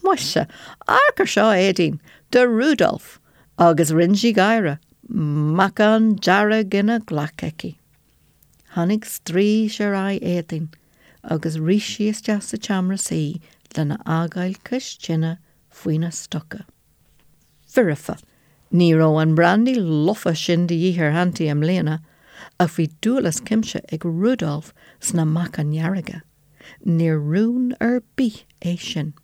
Muise, amharc ar seo, a Éadaoin, do Rudolf! Agus rinne sí gáire, meacan dearg ina glac aici. Tháinig straois ar aghaidh Éadaoin agus rith sí isteach sa tseomra suí lena fhágáil cois tine faoina stoca. Foirfe. Ní raibh an brandaí lofa sin de dhíth ar Shantaí i mbliana, ach bhí dúil as cuimse ag Rudolf sna meacain dhearga. Níor rún ar bith é sin.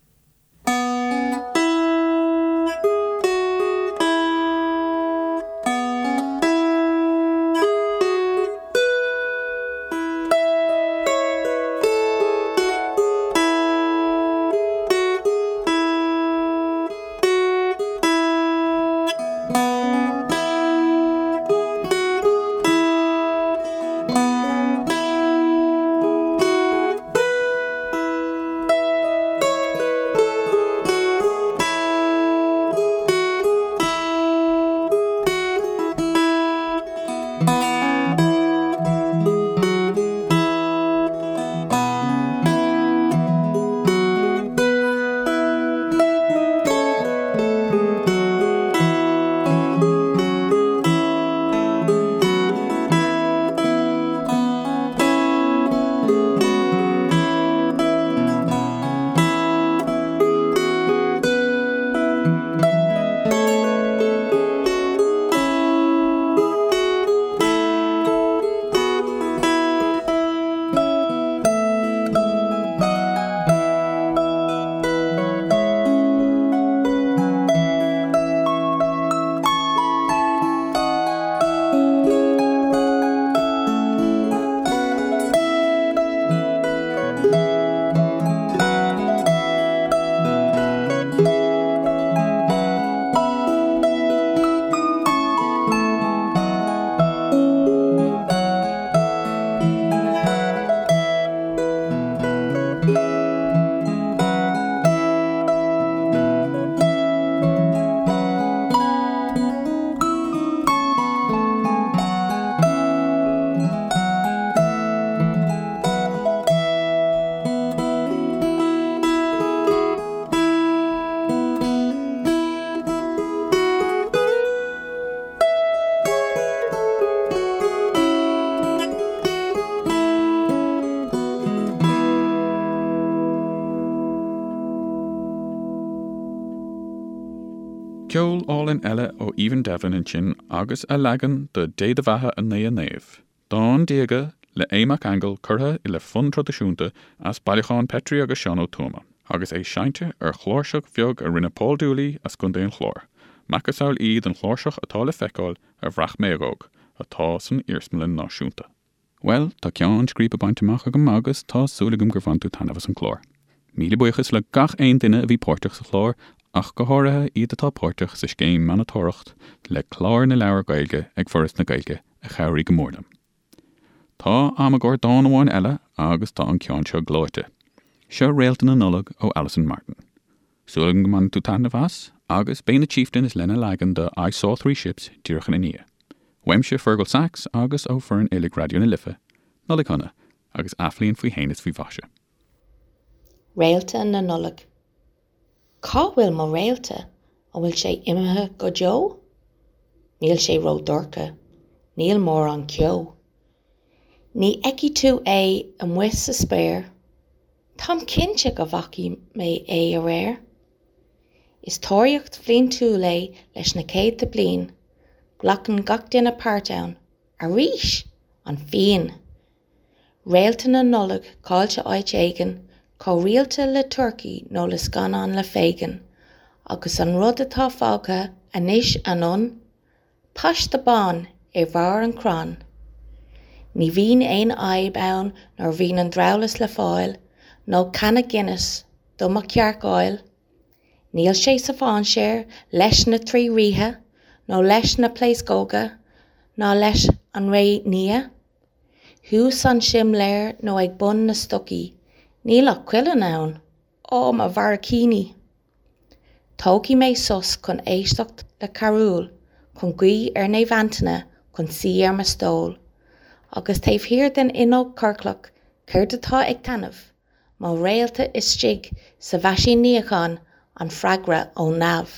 Ceol álainn eile ó Aoibhinn Devlin ansin agus a leagan de Dé do Bheatha a Naoi a Naomh. Dán diaga le Aodh Mac Aingil curtha le fonn traidisiúnta as bailiúchán Petrie agus Seán Ó Tuama, agus é seinnte ar chláirseach bheag a rinne Paul Dooley as gContae an Chláir, macasamhail í den chláirseach atá le feiceáil ar Bhraich Mhéagóg, atá san Iarsmalann Náisiúnta. Bhuel, tá ceann scríbe bainte amach agam agus tá súil agam gur bhain tú taitneamh as an chlár. Míle buíochas le gach aon duine a bhí páirteach sa chlár, ach go háirithe iad atá páirteach sa scéim Monatóireacht le Clár na Leabhar Gaeilge ag Foras na Gaeilge a chabhraigh go mór liom. Tá am i gcomhair dán amháin eile agus tá an ceann seo gleoite. Seo Réalta na Nollag ó Alison Martin. Súil agam go mbainfidh tú taitneamh as agus beidh na Chieftains lena leagan de I Saw Three Ships díreach ina ndiaidh. Uaimse Fergal Sachs agus ó foireann uilig Raidió na Life, Nollaig Shona agus athbhliain faoi shéan is faoi mhaise. Réalta na Nollag. Cá bhfuil mo réalta? An bhfuil sé imithe go deo? Níl sé ró-dhorcha. Níl mórán ceo. Ní fheicfidh tú é amuigh sa spéir. Táim cinnte go bhfaca mé é aréir. Is tóraíocht bhliantúil é leis na céadta bliain. Glacann gach duine páirt ann. Arís! An phian! Réalta na Nollag caillte áit éigin, chomh rialta le turcaí nó le scannán le Fagin. Agus an rud atá fágtha anois anonn? Paiste bán ar bharr an chrainn. Ní bhíonn aon fhadhb ann nuair a bhíonn an drabhlás le fáil, nó canna Guinness do mo chearcáil. Níl sé sa mhainséar leis na trí ríthe, nó leis na pléascóga, ná leis an ré nia. Thuas an simléar nó ag bun na stocaí, níl ach cuileann ann. Ó, mo bharraicíní! Tógfaidh mé sos chun éisteacht le carúil, chun guí ar Naomh Antaine, chun suí ar mo stól. Agus taobh thiar den fhuinneog chorclach, céard atá ag taitneamh? Mo réalta istigh sa mheaisín níocháin, an freagra ó neamh.